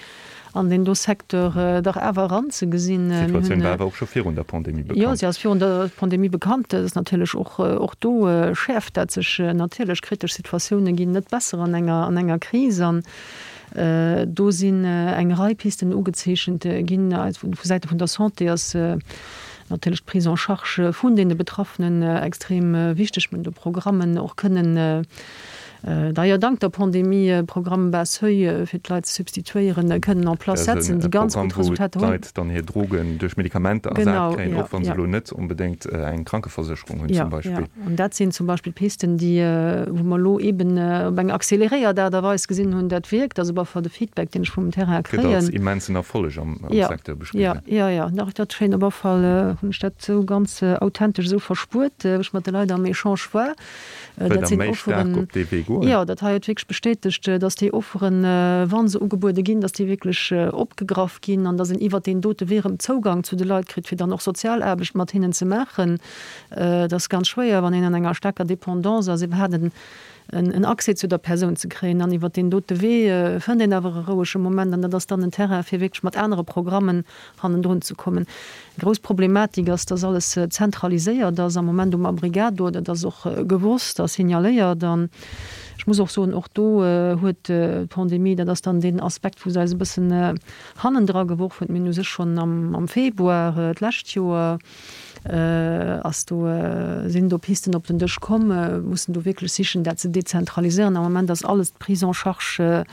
an deen do Secteur dach awer eranzegesinn. D'Situatioun war awer och scho virun der Pandemie bekannt. Jo, si ass virun der Pandemie bekannt. Et ass natierlech och, och do schäerft dat sech natierlech. Kritesch Situatioune ginn net besser an enger, an enger Kris. An do sinn eng Rei Pisten ugezeechent ginn. Vu Säite vun der Santé ass natierlech d'Prise en charge vun deene Betraffenen extrem wichteg. Mir hunn do Programmen och kënnen D'ailleurs, dank der Pandemie, e Programme bas seuil fir d'Leit ze substituéieren, kënnen en place setzen, déi ganz gutt Resultater hunn. Wou d'Leit dann hir Drogen duerch Medikamenter ersat kréien, och wa se elo net onbedéngt eng Krankeversécherung hunn zum Beispill. Jo, an dat sinn zum Beispill Pisten, déi, wou mer elo eeben op eng accéléréiert Aart a Weis gesinn hunn, dat wierkt. Also op alle Fall de Feedback, deen ech vum Terrain kréien. Gëtt als immensen Erfolleg am Secteur beschriwwen. Jo, jo, jo, dach, dat schéint op alle Fall, hunn ech dat esou ganz authentesch esou verspuert, wou ech mat de Leit am Echange war. Wëllt Der méi staark op dee Wee goen? Jo, dat hei huet wierklech bestätegt, dass déi Offeren, wa se ugebuede ginn, dass déi wierklech opgegraff ginn an dass een iwwert deen dote Wee erëm Zougang zu de Leit kritt, fir dann och Sozialaarbecht mat hinnen ze maachen. Et ass ganz schwéier, wann een an enger staarker Dépendance ass, iwwerhaapt en Accès zu der Persoun ze kréien. An iwwert deen dote Wee fënnt een awer e rouege Moment an dat ass dann en Terrain, fir wierklech mat anere Programmen hannendrun ze kommen. Eng grouss Problematik ass, dass alles zentraliséiert ass am Moment um Abrigado. Dat ass och gewosst a signaléiert. An ech muss och soen, och do huet d'Pandemie, dat ass dann deen Aspekt, wou se eis e bëssen hannendra geworf huet, mir hunn u sech schonn am Februar d'lescht Joer ass do, sinn do Pisten op den Dësch komm, mussen do wierklech sichen, dat ze dezentraliséieren. Am Moment ass alles d'Prise en charge,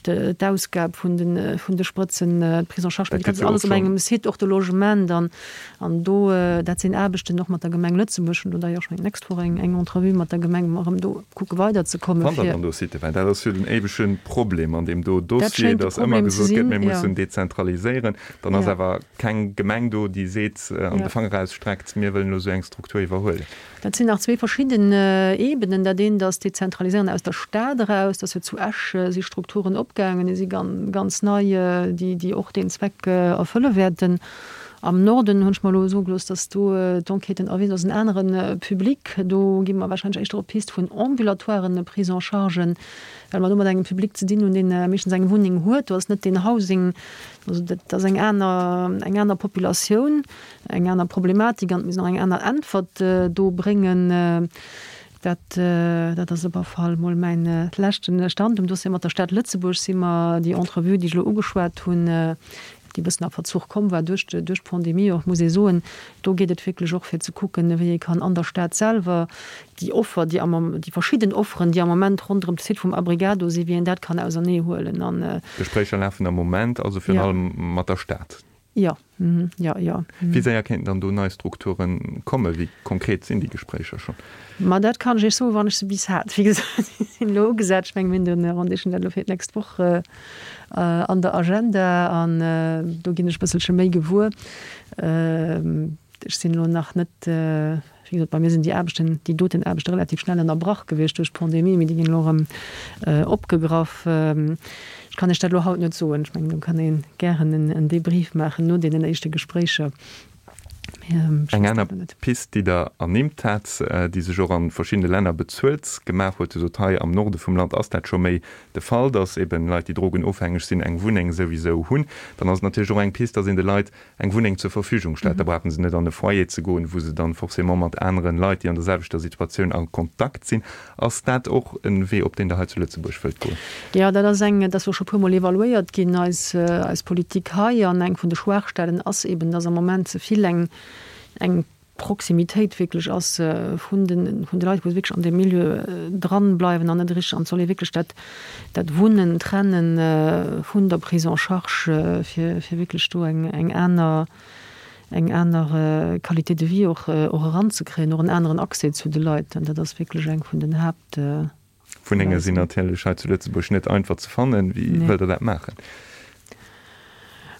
d'Ausgab vun de, vun de Sprëtzen, d'Prise en charge médicale, dat ass alles op engem Site, och de Logement. An, an do, dat sinn Aarbechten och mat der Gemeng Lëtzebuerg, hunn do d'ailleurs schonn d'nächst Woch eng, eng Entrevue mat der Gemeng, wou mer erëm do kucke weiderzekommen, Fannt Der fir. dann do Siten? Well dat ass jo den éiwege Problem an deem do Dossier, dass ëmmer gesot gëtt, mir mussen dezentraliséieren. Dann ass awer keng Gemeng do, déi seet an de Fanger erausstreckt, mir wëllen elo esou eng Struktur iwwerhuelen. Dat sinn nach zwee verschidden Ebenen. Dat eent ass d'Dezentraliséieren aus der Stad eraus. Dat ass jo zu Esch si Strukturen opgaangen, déi si ganz nei, déi och deen Zweck erfëlle wäerten. Am Norden hunn ech mer elo soe gelooss, datt do d'Enquêten erwisen, dat ass en anere Public. Do gi mer warscheinlech éischter op d'Pist vun ambulatoiren Prise-en-chargen, well mer do mat engem Public ze dinn hunn, deen meeschtens eng Wunneng huet. Do ass net deen Housing Also dat ass eng aner, eng aner Populatioun, eng aner Problematik an et muss een och eng aner Äntwert do bréngen. Dat, dat ass op alle Fall mol mäin leschte Stand um Dossier. Mat der Stad Lëtzebuerg si mer déi Entrevue, déi ech elo ugeschwat hunn, déi e bëssen a Verzuch komm war duerch, duerch d'Pandemie och, muss ee soen, do geet et wierklech och fir ze kucken, wéi ee kann an der Stad selwer déi Offer, déi am, déi verschidden Offeren, déi am Moment ronderëm de Site vum Abrigado sinn, wéi een dat kann auserneehuelen an. D'Gespréicher lafen am Moment also virun allem mat der Stad? Jo, jo, jo. Wéi séier kéinten dann do nei Strukture kommen? Wéi konkret sinn déi Gespréicher schonn? Ma dat kann ech Iech soen, wann ech se bis hat. Wéi gesot, déi sinn elo ugesat. Ech mengen, mir hunn de Rendez-vous dat elo fir d'nächst Woch an der Agenda an do ginn ech e bësselche méi gewuer. Ech sinn elo nach net, wéi gesot, bei mir sinn déi Aarbechten, déi doten Aarbechte relativ schnell ënnerbrach gewiescht duerch d'Pandemie, mee déi ginn elo erëm opgegraff. Ech kann Iech dat elo haut net soen. Ech mengen, do kann ee gären en Debrief maachen no deenen éischte Gespréicher. Mee ech Eng weess dat aner elo net. Pist, déi Der ernimmt hat, déi sech och a verschiddene Länner bezuelt gemaach huet, Dir sot, hei am Norde vum Land ass dat scho méi de Fall, datt eben Leit, déi drogenofhängeg sinn, eng Wunneng souwisou hunn. Dann ass et natierlech och eng Pist, datt een de Leit eng Wunneng zur Verfügung stellt, da brauche se net an e Foyer ze goen, wou se dann forcément mat aneren Leit, déi an der selwechter Situatioun a Kontakt sinn. Ass dat och e Wee, op deen Der hei zu Lëtzebuerg wëllt goen? Jo, dat ass eng, dat ass och scho e puermol evaluéiert ginn, eis, eis Politik hei. An eng vun de Schwaachstellen ass eben, dass am Moment ze vill eng, eng Proximitéit wierklech ass vun de, vun de Leit, wou se wierklech an deem Milieu dran bleiwen an net richteg, an et soll ee wierklech dat, dat Wunnen trennen vun der Prise en charge, fir, fir wierklech do eng, eng aner, eng aner Qualité de vie och, och eranzekréien, och en aneren Accès zu de Leit. An dat ass wierklech eng vun den Haapt. Wunnenge sinn natierlech hei zu Lëtzebuerg net einfach ze fannen. Wéi wëllt Der dat maachen?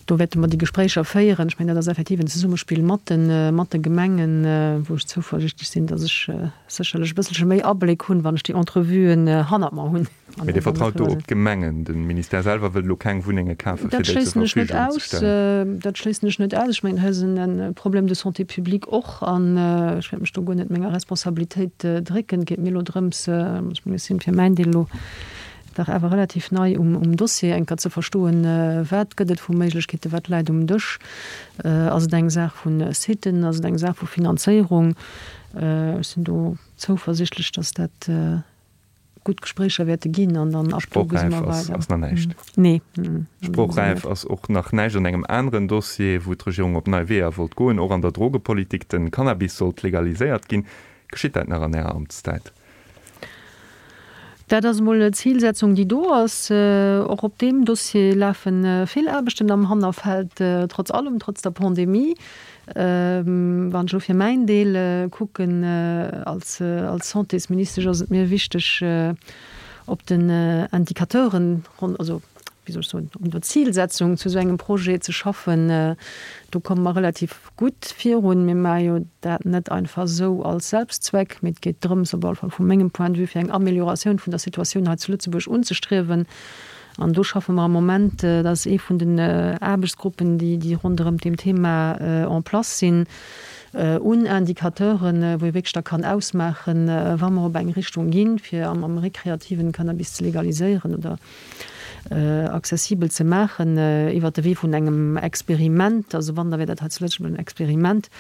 Do wäerte mer déi Gespréicher féieren. Ech mengen, dat ass effektiv en Zesummespill mat de, mat de Gemengen, wou ech zouversichtlech sinn, datt ech sécherlech e bësselche méi Abléck hunn, wann ech déi Entrevuen hannert mer hunn. Mee Dir vertraut do op d'Gemengen? De Ministère selwer wëllt elo keng Wunnenge kafen, fir déi zur Verfügung ze stellen? Dat schléissen ech net aus. Ech mengen, hei ass e Problème de santé publique och. An ech wäert mech do guer net menger Responsabilitéit drécken. Et geet mir elo drëms, ech mengen, ech sinn fir mäin Deel elo dach awer relativ nei um Dossier, eng Kéier ze verstoen, wat gëtt et vu Méiglechkeeten, wat läit um Dësch. Ass et eng Saach vu Siten, ass et eng Saach vu Finanzéierung? Ech sinn do zouversichtlech, dass dat gutt Gespréicher wäerte ginn an dann ab do gesi mer weider. Sprochräif ass nach näischt. Nee. Sprochräif ass och nach näischt an engem aneren Dossier, wou d'Regierung op nei Weeër wollt goen, och an der Drogepolitik. De Cannabis sollt legaliséiert ginn. Geschitt dat nach an Ärer Amtszäit? Dat ass emol d'Zilsetzung, déi do ass. Och op deem Dossier lafe vill Aarbechten am Hannerfeld, trotz allem, trotz der Pandemie. Wann ech elo fir mäin Deel kucken, als Santésministesch ass et mir wichteg, op den Indicateuren, also wéi soll ech soen, un der Zilsetzung zu esou engem Projet ze schaffen. Do komme mer relativ gutt virun. Mir maache jo dat net einfach esou als Selbstzweck, mee et geet drëms, op alle Fall vu mengem Point de vue, fir eng Amélioratioun vun der Situatioun hei zu Lëtzebuerg unzestriewen. An do schaffe mer am Moment, dat ass ee vun den Aarbechtsgruppen, déi ronderëm deem Thema en place sinn, un Indicateuren, wou ee wierklech da kann ausmaachen, wa mer op eng Richtung ginn, fir am rekreativen Cannabis ze legaliséieren oder accessibel ze maachen iwwert de Wee vun engem Experiment. Also wann, da wär dat hei zu Lëtzebuerg en Experiment.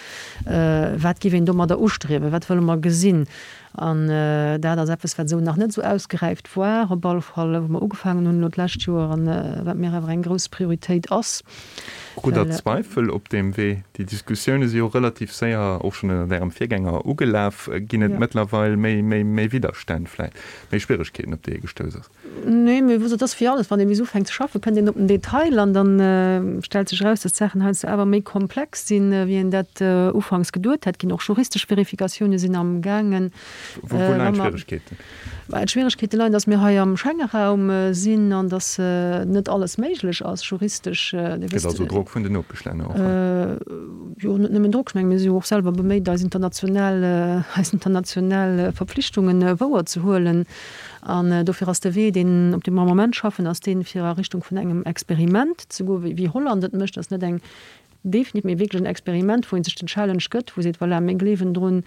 Wat géif een domadder ustriewen? Wat wëlle mer gesinn? An dat ass eppes, wat esou nach net esou ausgeräift war, op alle Fall, wou mer ugefaangen hunn elo d'lescht Joer an wat mir awer eng grouss Prioritéit ass. Krut Der Zweifel op deem Wee? Déi Diskussioune si jo relativ séier, och schonn ënnert Ärem Virgänger, ugelaf. Ginn et mëttlerweil méi Widderstänn vläicht, méi Schwieregkeeten, op déi ee gestouss ass? Nee, mee wou, et ass wéi alles, wann ee bis ufänkt ze schaffen, kënnt een op den Detail an dann stellt sech eraus, dass d'Saachen heiansdo awer méi komplex sinn, wéi een dat ufanks geduet hätt. Ginn och juristesch Verifikatioune sinn am gaangen. Wou leien d'Schwieregkeeten? D'Schwieregkeete leien, dass mir hei am Schengeraum sinn an dass net alles méiglech ass juristesch. Dir wësst. Gëtt also Drock vun den Nopeschlänner och? Jo, net nëmmen Drock. Ech menge mir si jo och selwer beméit, eis international, eis international Verpflichtungen wouerzehuelen. An dofir ass de Wee, deen, op deem mer am Moment schaffen, ass deen, fir a Richtung vun engem Experiment ze goen, wéi Holland et mécht. Dat ass net eng definitiv, mee wierklech en Experiment, wou ee sech den Challenge gëtt, wou ee seet, Voilà, mir gleewen drun,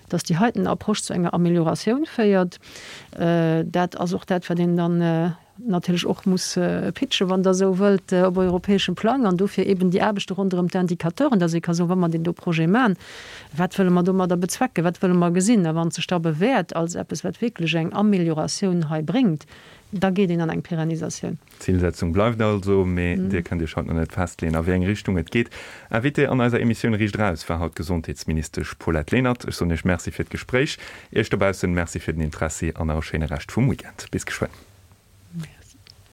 dass déi heiten Approche zu enger Amélioratioun féiert. Dat ass och dat, wat een dann natierlech och muss pitchen, wann Der esou wëllt, op europäeschem Plang. An dofir eben déi Aarbechte ronderëm d'Indicateuren, dass ee ka soen, wa mer deen do Projet maachen, Wat wëlle mer domadder bezwecken? Wat wëlle mer gesinn? A wann et sech da bewäert als eppes, wat wierklech eng Amélioratioun hei bréngt, da geet een an eng Pérennisatioun. D'Zilsetzung bleift also, mee Dir kënnt Iech haut nach net festleeën, a wéi eng Richtung et geet. Invitée an eiser Emissioun Riicht Eraus war haut d'Gesondheetsministesch Paulette Lenert. Ech soen Iech Merci fir d'Gespréich, Iech dobaussen Merci fir den Interessi an nach e schéine Rescht vum Weekend. Bis geschwënn.